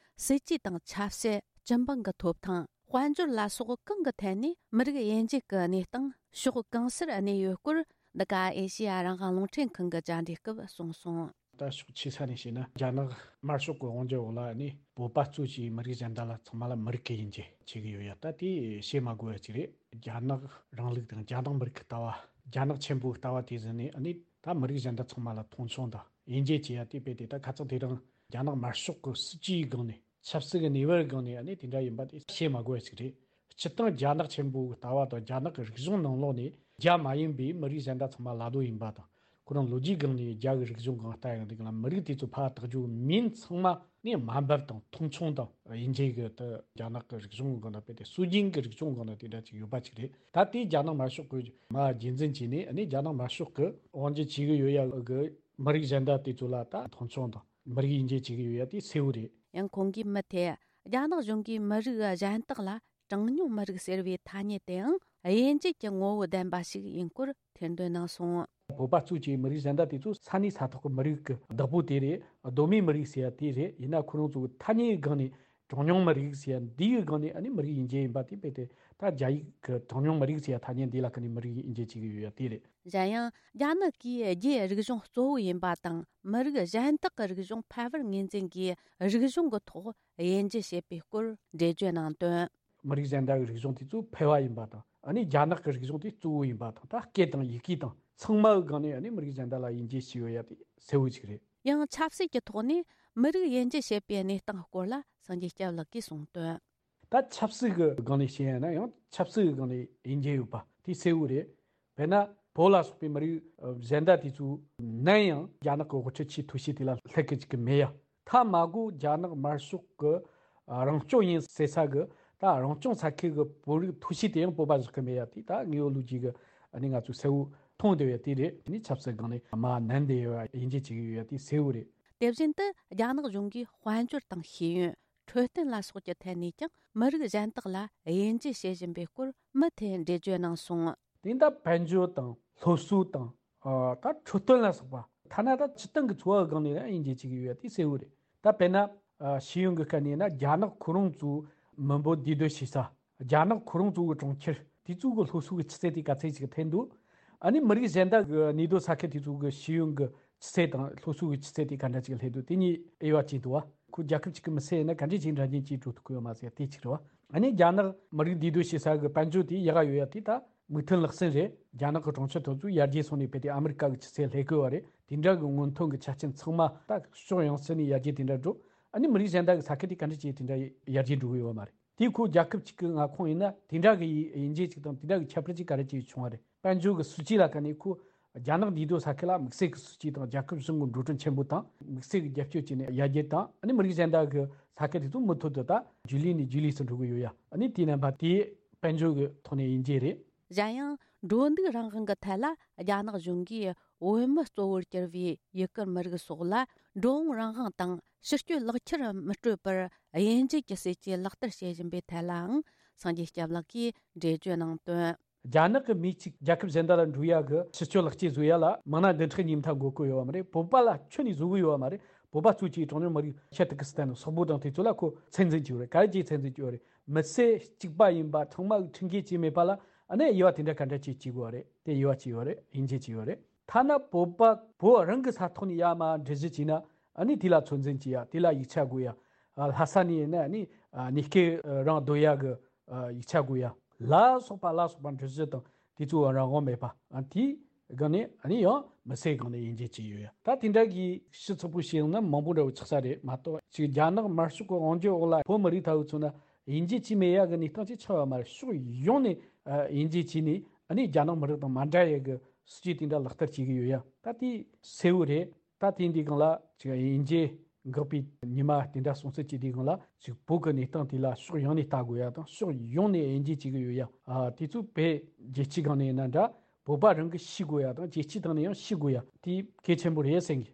སྲིད་ཇུས་དང་ཆབ་སྲིད། སྤྱི་འབངས་ཀྱི་ཐོབ་ཐང་། དཔལ་འབྱོར་ལ་སོགས་གང་གི་ཐད་ནས་མི་རིགས་དབྱེ་འབྱེད་ཀྱི་གནས་སྟངས་ཕྱོགས་གང་སར་གནས་ཡོད་སྐོར། འདི་ག་ཨེ་ཤེ་ཡ་རང་དབང་རླུང་འཕྲིན་ཁང་གི་བཅར་འདྲི་སྐབས་གསུངས་སོང་། ད་ཕྱོགས་ཆེ་ས་ནས་བཤད་ན། རྒྱ་ནག་དམར་ཤོག་གི་དབང་སྒྱུར་འོག་ལ་ནི་བོད་པ་གཙོ་བྱས་མི་རིགས་གཞན་དག་ལ་ཚང་མ་ལ་མི་རིགས་ཀྱི་དབྱེ་འབྱེད་བྱེད་ཀྱི་ཡོད་ཡ། ད་དེ་བཤད་མ་དགོས་པ་ཅིག་རེད། རྒྱ་ནག་རིང་ལུགས་དང་རྒྱ་ནག་མི་རིགས་ཀྱི་ལྟ་བ། རྒྱ་ནག་ཆེན་པོའི་ལྟ་བ་དེ་ཟིན་ནས་ནི་ད་མི་རིགས་གཞན་དག་ཚང་མ་ལ་མཐོང་ཆུང་དང་དབྱེ་འབྱེད་བྱེད་ཡ་དེ་རྦད་དེ། ད་ཁ་ཚང་དེ་རིང་རྒྱ་ནག་དམར་ཤོག་གི་སྲིད་ཇུས་སྒང་ནས། ཆབ་སྲིད་ཀྱི་གནས་བབ་སྒང་ནས་ནི་དེ་འདྲ་ཡིན་པ་དེ་བཤད་མ་དགོས་པ་ཞིག་རེད། སྤྱིར་བཏང་རྒྱ་ནག་ཆེན་པོའི་ལྟ་བ་དང་རྒྱ་ནག་གི་རིག་གཞུང་ནང་ལོགས་ནས་རྒྱ་མ་ཡིན་པའི་མི་རིགས་གཞན་དག་ཚང་མ་ལ་རྡོ་ཡིན་པ་དང་། ཁོ་རང་ལོ་རྒྱུས་སྒང་ནས་རྒྱ་གི་རིག་གཞུང་སྒང་ལྟ་ཡོང་དུས་སྒང་ལ། མི་རིགས་དེ་ཚོ་ཕར་བཏགས་རྒྱུ་མིན་ཚང་མ་ནི་དམའ་འབེབས་དང་མཐོང་ཆུང་དང་དབྱེ་འབྱེད་ཀྱི། དེ་རྒྱ་ནག་གི་རིག་གཞུང་སྒང་ལ་རྦད་དེ་སྲོལ་རྒྱུན་གྱི་རིག་གཞུང་སྒང་ལ་དེ་འདྲ་ཅིག་ཡོད་པ་ཅིག་རེད། ད་དེ་རྒྱ་ནག་དམར་ཤོག་གིས་མར་རྒྱུན་འཛིན་བྱས་ནས་ནི་རྒྱ་ནག་དམར་ཤོག་གིས་དབང་སྒྱུར་བྱེད་ཀྱི་ཡོད་ཡ་གི་མི་རིགས་གཞན་དག་དེ་ཚོ་ལ་ད་མཐོང་ཆུང་དང་མི་རིགས་དབྱེ་འབྱེད་བྱེད་ཀྱི་ཡོད་ཡ་དེ་གསལ་བོ་རེད། ཡང་ཁོང་གིས་མུ་མཐུད། རྒྱ་ནག་གཞུང་གིས་མི་རིགས་གཞན་དག་ལ་གྲངས་ཉུང་མི་རིགས་ཟེར་བའི་ཐ་སྙད་དེའང་དབྱེ་འབྱེད་ཀྱི་ངོ་བོ་ལྡན་པ་ཞིག་ཡིན་སྐོར་ཐེར་འདོན་གནང་སོང་། བོད་པ་གཙོས་ཀྱི་མི་རིགས་གཞན་དག་དེ་ཚོ་ས་གནས་ས་ཐོག་གི་མི་རིགས་ཀྱི་བདག་པོ་དེ་རེད། གདོད་མའི་མི་རིགས་ཟེར་ཡ་དེ་རེད། ཡིན་ན་ཁོ་རང་ཚོ་གི་ཐ་སྙད་སྒང་ནས་གྲངས་ཉུང་མི་རིགས་ཟེར་ཡ་འདིའི་སྒང་ནས་ཨ་ནི་མི་རིགས་དབྱེ་འབྱེད་ཡིན་པ་དེ་རྦད་དེ། ད་རྒྱ་ཡིག་གི་གྲངས་ཉུང་མི་རིགས་ཟེར་ཡ་ཐ་སྙད་འདི་ལ་ཁ་ནས་མི་རིགས་དབྱེ་འབྱེད་བྱེད་ཀྱི་ཡོད་ཡ་དེ་རེད། གཞན་ཡང་། རྒྱ་ནག་གིས་རྒྱའི་རིག་གཞུང་གཙོ་བོ་ཡིན་པ་དང་། མི་རིགས་གཞན་དག་གི་རིག་གཞུང་ཕལ་པར་ངོས་འཛིན་གྱིས་རིག་གཞུང་གི་ཐོག་དབྱེ་འབྱེད་བྱེད་པའི་སྐོར་འགྲེལ་བརྗོད་གནང་དོན། མི་རིགས་གཞན་དག་གི་རིག་གཞུང་དེ་ཚོ་ཕལ་པ་ཡིན་པ་དང་། ཨ་ནི་རྒྱ་ནག་གི་རིག་གཞུང་དེ་གཙོ་བོ་ཡིན་པ་དང་། ད་སྐད་དང་ཡི་གེ་དང་ཚང་མའི་སྒང་ནས་ཨ་ནི་མི་རིགས་གཞན་དག་ལ་དབྱེ་འབྱེད་བྱས་ཡོད་ཡ་དེ་གསལ་བོ་ཅིག་རེད། ཡང་ཆབ་སྲིད་ཀྱི་ཐོག་ནས་མི་རིགས་དབྱེ་འབྱེད་བྱེད་པའི་གནས་སྟངས་སྐོར་ལ་སངས་རྒྱས་སྐྱབས་ལགས་ཀྱིས་གསུངས་དོན། ད་ཆབ་སྲིད་ཀྱི་སྒང་ནས་བཤད་ཡ་ན་ཡང་ཆབ་སྲིད་ཀྱི་སྒང་ནས་དབྱེ་འབྱེད་ཡོད་པ་དེ་གསལ་བོ་རེད། དཔེར་ན་བོད་ལ་སོགས་པའི་མི་རིགས་གཞན་དག་དེ་ཚོ་ནམ་ཡང་རྒྱ་ནག་གི་དབུ་ཁྲིད་ཆེས་མཐོ་ཤོས་དེ་ལ་སླེབས་ཀྱི་ཅིག་གི་མེད་ཡ། མཐའ་མ་གོ་རྒྱ་ནག་དམར་ཤོག་གི་རང་སྐྱོང་ཡིན་ཟེར་ས་གི་ད་རང་སྐྱོང་ས་ཁུལ་གི་བོད་རིགས་མཐོ་ཤོས་དེ་ཡང་བོད་པ་བཞག་གི་མེད་ཡ། དེ་ད་དངོས་ཡོད་ལོ་རྒྱུས་གི་ཨ་ནི་ང་ཚོས་གསལ་བོ་མཐོང་བསྡད་ཡོད་དེ་རེད། ཨ་ནི་ཆབ་སྲིད་སྒང་ནས་མ་ནན་བསྡད་ཡོད་པ་དབྱེ་འབྱེད་བྱེད་ཀྱི་ཡོད་ཡ་དེ་གསལ་བོ་རེད། དེ་བཞིན་དུ་རྒྱ་ནག་གཞུང་གིས་དཔལ་འབྱོར་དང་ཤེས་ཡོན། འཕྲོད་བསྟེན་ལ་སོགས་ཀྱི་ཐད་ནས་ཀྱང་མི་རིགས་གཞན་དག་ལ་དབྱེ་འབྱེད་བྱེད་བཞིན་པའི་སྐོར་མུ་མཐུད་འགྲེལ་བརྗོད་གནང་སོང་། དེ་ད་དཔལ་འབྱོར་དང་སློབ་གསོ་དང་། ཨ། ད་འཕྲོད་བསྟེན་ལ་སོགས་པ། ཐ་ན་ད་སྤྱིར་བཏང་གི་འཚོ་བ་སྒང་ནས་ཡང་དབྱེ་འབྱེད་བྱེད་ཀྱི་ཡོད་པ་དེ་གསལ་བོ་རེད། ད་དཔེར་ན། ཨ། ཤེས་ཡོན་གྱི་སྐད་ནས་ན་རྒྱ་ནག་ཁོ་རང་ཚོའི་མི་འབོར་འདུས་སྡོད་བྱེད་ས། རྒྱ་ནག་ཁོ་རང་ཚོའི་གྲོང་ཁྱེར་དེ་ཚོ་གི་སློབ་གསོ་གི་ཆུ་ཚད་དེ་ག་ཚད་ཅིག་ཐོན་འདུག་ཨ་ནི་མི་རིགས་གཞན་དག་གི་གནས་སྡོད་ས་ཁུལ་དེ་ཚོ་གི་ཤེས་ཡོན་གྱི་ཆུ་ཚད་དང་སློབ་གསོ་གི་ཆུ་ཚད་དེ་ག་འདྲ་ཅིག་སླེབས་འདུག་དེ་གཉིས་དབྱེ་བ་ཕྱེ་འདུག་བ། ཁོ་རྒྱལ་ཁབ་ཅིག་གི་མི་སེར་ཡིན་ན་ག་འདྲས་ཅིག་འདྲ་མཉམ་ཅིག་འགྲོ་ཐུབ་ཀྱི་ཡོད་མ་ཟེར་དེ་གཅིག་རེད་བ། ཨ་ནི་རྒྱ་ནག་མི་རིགས་འདུས་སྡོད་བྱེད་ས་གི་དཔལ་འབྱོར་དེ་ཡག་ག་ཡོད་ཡ་དེ་ད་མིག་མཐོང་ལག་ཟིན་རེད། རྒྱ་ནག་གི་གྲོང་ཁྱེར་དེ་ཚོ་ཡར་རྒྱས་སོང་ནས་རྦད་དེ་ཨ་མི་རི་ཀ་གི་ཆུ་ཚད་སླེབས་དགོས་བ་རེད། དེ་འདྲ་གི་སྔོན་ཐོན་གྱི་ཆ་རྐྱེན་ཚང་མ་ད་ཕྱོགས་ཡོངས་ཚུད་ནས་ཡར་རྒྱས་དེ་འདྲ་འགྲོ། ཨ་ནི་མི་རིགས་གཞན་དག་གི་ས་ཁུལ་དེ་ག་འདྲ་ཅིག་དེ་འདྲ་ཡར་རྒྱས་འགྲོ་གི་ཡོད་མ་རེད། དེ་ཁོ་རྒྱལ་ཁབ་ཅིག་གི་མངའ་ཁོངས་ཡིན་ན་དེ་འདྲ་གི་དབྱེ་འབྱེད་ཅིག་དང་དེ་འདྲ་གི་ཁྱད་པར་ཅིག་ག་རེ་ཅིག་བྱུང་བ་རེད། དཔལ་འབྱོར་གྱི་སྲིད་ཇུས་ལ་ཁ་ནས་ཁོ་རྒྱ་ནག་འདུས་སྡོད་ས་ཁུལ་ལ་དམིགས་བསལ་གྱི་སྲིད་ཇུས་དང་རྒྱལ་ཁབ་གཞུང་གི་འགྲོ་གྲོན་ཆེན་པོ་དང་དམིགས་བསལ་གྱི་རྒྱབ་སྐྱོར་བྱས་ནས་ཡར་རྒྱས་དང་ཨ་ནི་མི་རིགས་གཞན་དག་གི་ས་ཁུལ་དེ་ཚོ་མུ་མཐུད་དུ་ད་རྒྱུན་ལས་ནས་རྒྱུན་ལས་སུ་འགྲོ་གི་ཡོད་ཡ། ཨ་ནི་དེའི་རྣམ་པ་དེ་དཔལ་འབྱོར་གྱི་ཐོག་ནས་དབྱེ་འབྱེད་རེད། གཞན་ཡང་འགྲོ་འདུག་རང་དབང་གི་ཐད་ལ་རྒྱ་ནག་གཞུང་གིས་བོད་མི་གཙོ་བོར་གྱུར་བའི་ཡུ་གུར་མི་རིགས་སོགས་ལ་འགྲོ་འོང་རང་དབང་དང་ཕྱི་སྐྱོད་ལག་ཁྱེར་མི་སྤྲོད་པར་དབྱེ་འབྱེད་ཀྱི་སྲིད་ཇུས་ལག་བསྟར་བྱེད་བཞིན་པའི་ཐད་ལའང་སངས་རྒྱས་སྐྱབས་ལགས་ཀྱིས་འགྲེལ་བརྗོད་གནང་དོན། རྒྱ་ནག་གི་མིས་ཅིག་རྒྱལ་ཁབ་གཞན་དག་ལ་འགྲོ་ཡ་གི་ཕྱི་སྐྱོད་ལག་ཁྱེར་བཟོ་ཡ་ལ་མང་ན་བདུན་ཕྲག་གཉིས་མཐའ་འགོར་གི་ཡོད་བ་མ་རེད། བོད་པ་ལ་ཁྱོན་ནས་བཟོ་གི་ཡོད་བ་མ་རེད། བོད་པ་གཙོས་ཀྱི་གྲངས་ཉུང་མི་རིགས་ཤར་ཏུར་ཀི་སི་ཐན་སོག་པོ་དང་དེ་ཚོ་ལ་ཁོ་ཚད་འཛིན་བྱས་ཡོད་རེད། ག་རེ་བྱས་ཚད་འཛིན་བྱས་ཡོད་རེད། མི་སེར་གཅིག་པ་ཡིན་པ་ཚང་མ་གི་ཁྲིམས་འགལ་བྱས་མེད་པ་ལ་ཨ་ནི་དབྱེ་བ་དེ་འདྲ་ག་འདྲ་ཅིག་བྱེད་དགོས་བ་རེད། དེ་དབྱེ་བ་བྱས་ཡོད་རེད། དབྱེ་འབྱེད་བྱས་ཡོད་རེད། ཐ་ན་བོད་པ་བོད་རང་གི་ས་ཐོག་ནས་ཡར་མར་འགྲུལ་བཞུད་བྱས་ན་ཨ་ནི་དེ་ལ་ཚོད་འཛིན་བྱེད་ཡ། དེ་ལ་ཡིག་ཆ་དགོས་ཡ། ཨ། ལྷ་ས་ནས་ཡིན་ན་ཨ་ནི་ཨ་གནས་སྐབས་རང་སྡོད་ཡ་གི་ཨ་ཡིག་ཆ་དགོས་ཡ་ལ་སོགས་པ་ལ་སོགས་པ་འགྲུལ་བཞུད་དང་དེ་ཚོའི་རང་དབང་མེད་པ། ཨ། དེའི་སྒང་ནས་ཨ་ནི་ཡང་མི་སེར་སྒང་ནས་དབྱེ་འབྱེད་བྱས་ཡོད་ཡ། ད་དེ་འདྲ་གི་ཤི་ཚོགས་པོ་ཞིག་ཡོང་ན་མང་པོ་འདྲ་བོ་ཆགས་ས་རེད་མ་གཏོགས་ཅིག་རྒྱ་ནག་དམར་ཤོག་གི་དབང་སྒྱུར་འོག་ལ་བོད་མི་རིགས་ཐ་བུ་ཚོ་ན་དབྱེ་འབྱེད་བྱས་མེད་ཡ་གི་གནས་སྟངས་ཅིག་ཆགས་ཡོད་མ་རེད། ཕྱོགས་ཡོངས་ནས་ཨ་དབྱེ་འབྱེད་བྱས་ནས་ཨ་ནི་རྒྱ་ནག་མི་རིགས་དང་མ་འདྲ་ཡ་གི་སྲིད་ཇུས་དེ་འདྲ་ལག་བསྟར་བྱེད་ཀྱི་ཡོད་ཡ། ད་དེ་གསལ་བོ་རེད། ད་དེ་འདི་སྒང་ལ་ཅིག་དབྱེ་འབྱེད་འགག་པའི་ཉི་མ་དེ་འདྲ་སོང་ཚུལ་གྱི་དེ་སྒང་ལ་ཅིག་བོད་ཀྱི་གནས་སྟངས་དེ་ལ་ཕྱོགས་ཡོངས་ནས་ལྟ་དགོས་ཡ་དང་ཕྱོགས་ཡོངས་ནས་དབྱེ་འབྱེད་བྱེད་ཀྱི་ཡོད་ཡ། ཨ། དེ་ཚོ་བོད་རྒྱལ་སྤྱིའི་སྒང་ནས་ཡིན་ན་འདྲ་བོད་པ་རང་གིས་ཤེས་དགོས་ཡ་དང་རྒྱལ་སྤྱིའི་སྟེང་ནས་ཡང་ཤེས་དགོས་ཡ་དེ་གལ་ཆེན་པོ་རེད་བསམ་གི།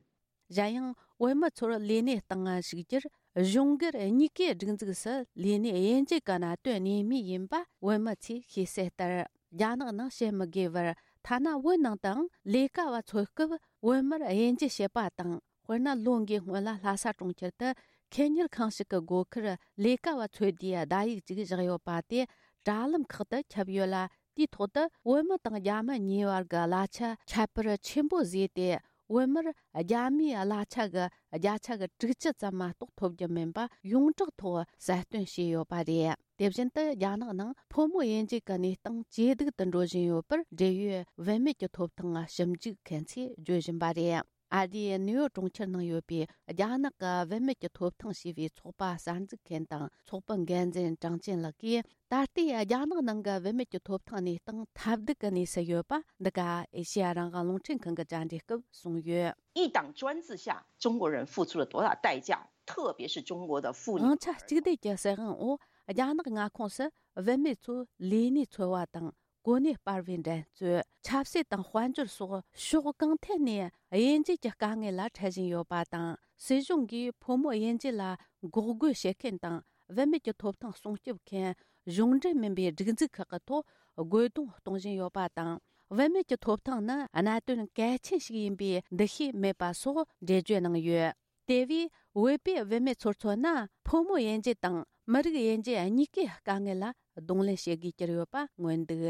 གཞན་ཡང་བོད་མི་ཚོར་ལས་གནས་སྟེང་ཞུགས་རྒྱུར་གཞུང་སྒེར་གཉིས་ཀའི་སྒྲིག་འཛུགས་སུ་ལས་གནས་དབྱེ་འབྱེད་ཀྱི་གནད་དོན་གནད་སྨིན་ཡིན་པ་བོད་མི་ཚོས་ཤེས་གསལ་ལྟར། རྒྱ་ནག་ནང་བཤད་མི་དགོས་པར་ཐ་ན་བོད་ནང་དུའང་ལས་ཀ་བ་འཚོལ་སྐབས་བོད་མིར་དབྱེ་འབྱེད་བྱེད་པ་དང་། དཔེར་ན་ལོ་འགའི་སྔོན་ལ་ལྷ་ས་གྲོང་ཁྱེར་དུ་ཁེ་གཉེར་ཁང་ཞིག་གི་སྒོ་ཁར་ལས་ཀ་བ་འཚོལ་དུས་བརྡ་ཡིག་ཅིག་བཞག་ཡོད་པ་དེ་དྲ་ལམ་ཁག་ཏུ་ཁྱབ་ཡོད་ལ། དེའི་ཐོག་ཏུ་བོད་མི་དང་རྒྱ་མི་གཉིས་བར་གྱི་གླ་ཆ་ཁྱད་པར་ཆེན་པོ་བཟོས་ཏེ། བོད་མིར་རྒྱ་མིའི་གླ་ཆ་གི་བརྒྱ་ཆ་གི་དྲུག་ཅུ་ཙམ་མ་གཏོགས་ཐོབ་རྒྱུ་མིན་པ་ཡོངས་གྲགས་ཐོག་གསལ་སྟོན་བྱས་ཡོད་པ་རེད། དེ་བཞིན་དུ་རྒྱ་ནག་ནང་ཕོ་མོ་དབྱེ་འབྱེད་ཀྱི་གནས་སྟངས་ཇེ་སྡུག་ཏུ་འགྲོ་བཞིན་ཡོད་པར་འབྲེལ་ཡོད་བུད་མེད་ཀྱི་ཐོབ་ཐང་ཞིབ་འཇུག་མཁན་ཚོས་བརྗོད་བཞིན་པ་རེད། ཨ་རིའི་ནིའུ་ཡོག་གྲོང་ཁྱེར་ནང་ཡོད་པའི་རྒྱ་ནག་གི་བུད་མེད་ཀྱི་ཐོབ་ཐང་ཞེས་པའི་ཚོགས་པ་གསར་འཛུགས་མཁན་དང་ཚོགས་པའི་འགན་འཛིན་ཀྲང་ཅིན་ལགས་ཀྱིས། ད་ལྟའི་རྒྱ་ནག་ནང་གི་བུད་མེད་ཀྱི་ཐོབ་ཐང་གནས་སྟངས་ཐབས་སྡུག་གི་གནས་སུ་ཡོད་པ་འདི་ག་ཨེ་ཤེ་ཡ་རང་དབང་རླུང་འཕྲིན་ཁང་གི་བཅར་འདྲི་སྐབས་གསུངས་ཡོད། 一党专制下，中国人付出了多大代价，特别是中国的妇女。 དབང་ཆ་གཅིག་སྡུད་ཀྱི་སྲིད་དབང་འོག་རྒྱ་ནག་མངའ་ཁོངས་སུ་བུད་མེད་ཚོས་ལས་གནས་འཚོལ་བ་དང་གོ་གནས་སྤར་བའི་འགྲན་རྩོད། ཆབ་སྲིད་དང་དཔལ་འབྱོར་སོགས་ཕྱོགས་གང་ཐད་ནས་དབྱེ་འབྱེད་ཀྱི་དཀའ་ངལ་ལ་འཕྲད་བཞིན་ཡོད་པ་དང་། སྲིད་གཞུང་གིས་ཕོ་མོ་དབྱེ་འབྱེད་ལ་འགོག་རྒོལ་བྱེད་མཁན་དང་། བུད་མེད་ཀྱི་ཐོབ་ཐང་སྲུང་སྐྱོབ་མཁན་གཞུང་འབྲེལ་མིན་པའི་སྒྲིག་འཛུགས་ཁག་གི་ཐོག་རྒོལ་རྡུང་གཏོང་བཞིན་ཡོད་པ་དང་། བུད་མེད་ཀྱི་ཐོབ་ཐང་ནི་གནད་དོན་གལ་ཆེན་ཞིག་ཡིན་པའི་འདུ་ཤེས་མེད་པ་སོགས་འགྲེལ་བརྗོད་གནང་ཡོད། དེ་བས་བོད་པའི་བུད་མེད་ཚོར་མཚོན་ན། ཕོ་མོ་དབྱེ་འབྱེད་དང་མི་རིགས་དབྱེ་འབྱེད་གཉིས་ཀའི་དཀའ་ངལ་ལ་གདོང་ལེན་བྱེད་དགོས་ཀྱི་ཡོད་པ་མངོན་འདུག།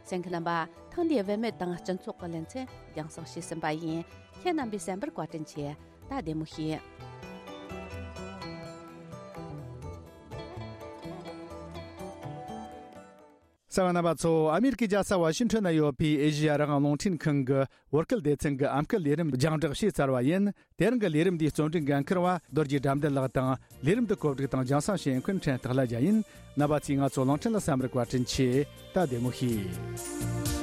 གསན་མཁན་རྣམ་པ། ཐེངས་འདིའི་བུད་མེད་དང་སྤྱི་ཚོགས་ཀྱི་ལེ་ཚན་རྒྱང་སྲིང་བྱས་ཟིན་པ་ཡིན། ཁྱེད་རྣམ་པས་གསན་པར་བཀའ་དྲིན་ཆེ། ད་བདེ་མོ་བྱོས། རྩ་བ་རྣམ་པ་ཚོ། ཨ་མེ་རི་ཀའི་རྒྱལ་ས་ཝ་ཤིང་ཊོན་ན་ཡོད་པའི་ཨེ་ཤེ་ཡ་རང་དབང་རླུང་འཕྲིན་ཁང་གི་བོད་སྐད་སྡེ་ཚན་གྱི་ཨམ་སྐད་ལས་རིམ་རྒྱང་བསྒྲགས་བྱས་ཚར་བ་ཡིན། དེ་རིང་གི་ལས་རིམ་འདིའི་རྩོམ་སྒྲིག་འགན་འཁུར་བ་རྡོ་རྗེ་དགྲ་འདུལ་ལགས་དང་། ལས་རིམ་འདི་གོ་སྒྲིག་དང་རྒྱང་སྲིང་བྱེད་མཁན་ཕྲན་སྟག་ལྷ་རྒྱལ་ཡིན། རྣམ་པ་ཚོས་ང་ཚོ་གླིང་ཕྲན་ལ་བསམ་རིག་བཀའ་དྲིན་ཆེ། ད་བདེ་མོ་བྱོས།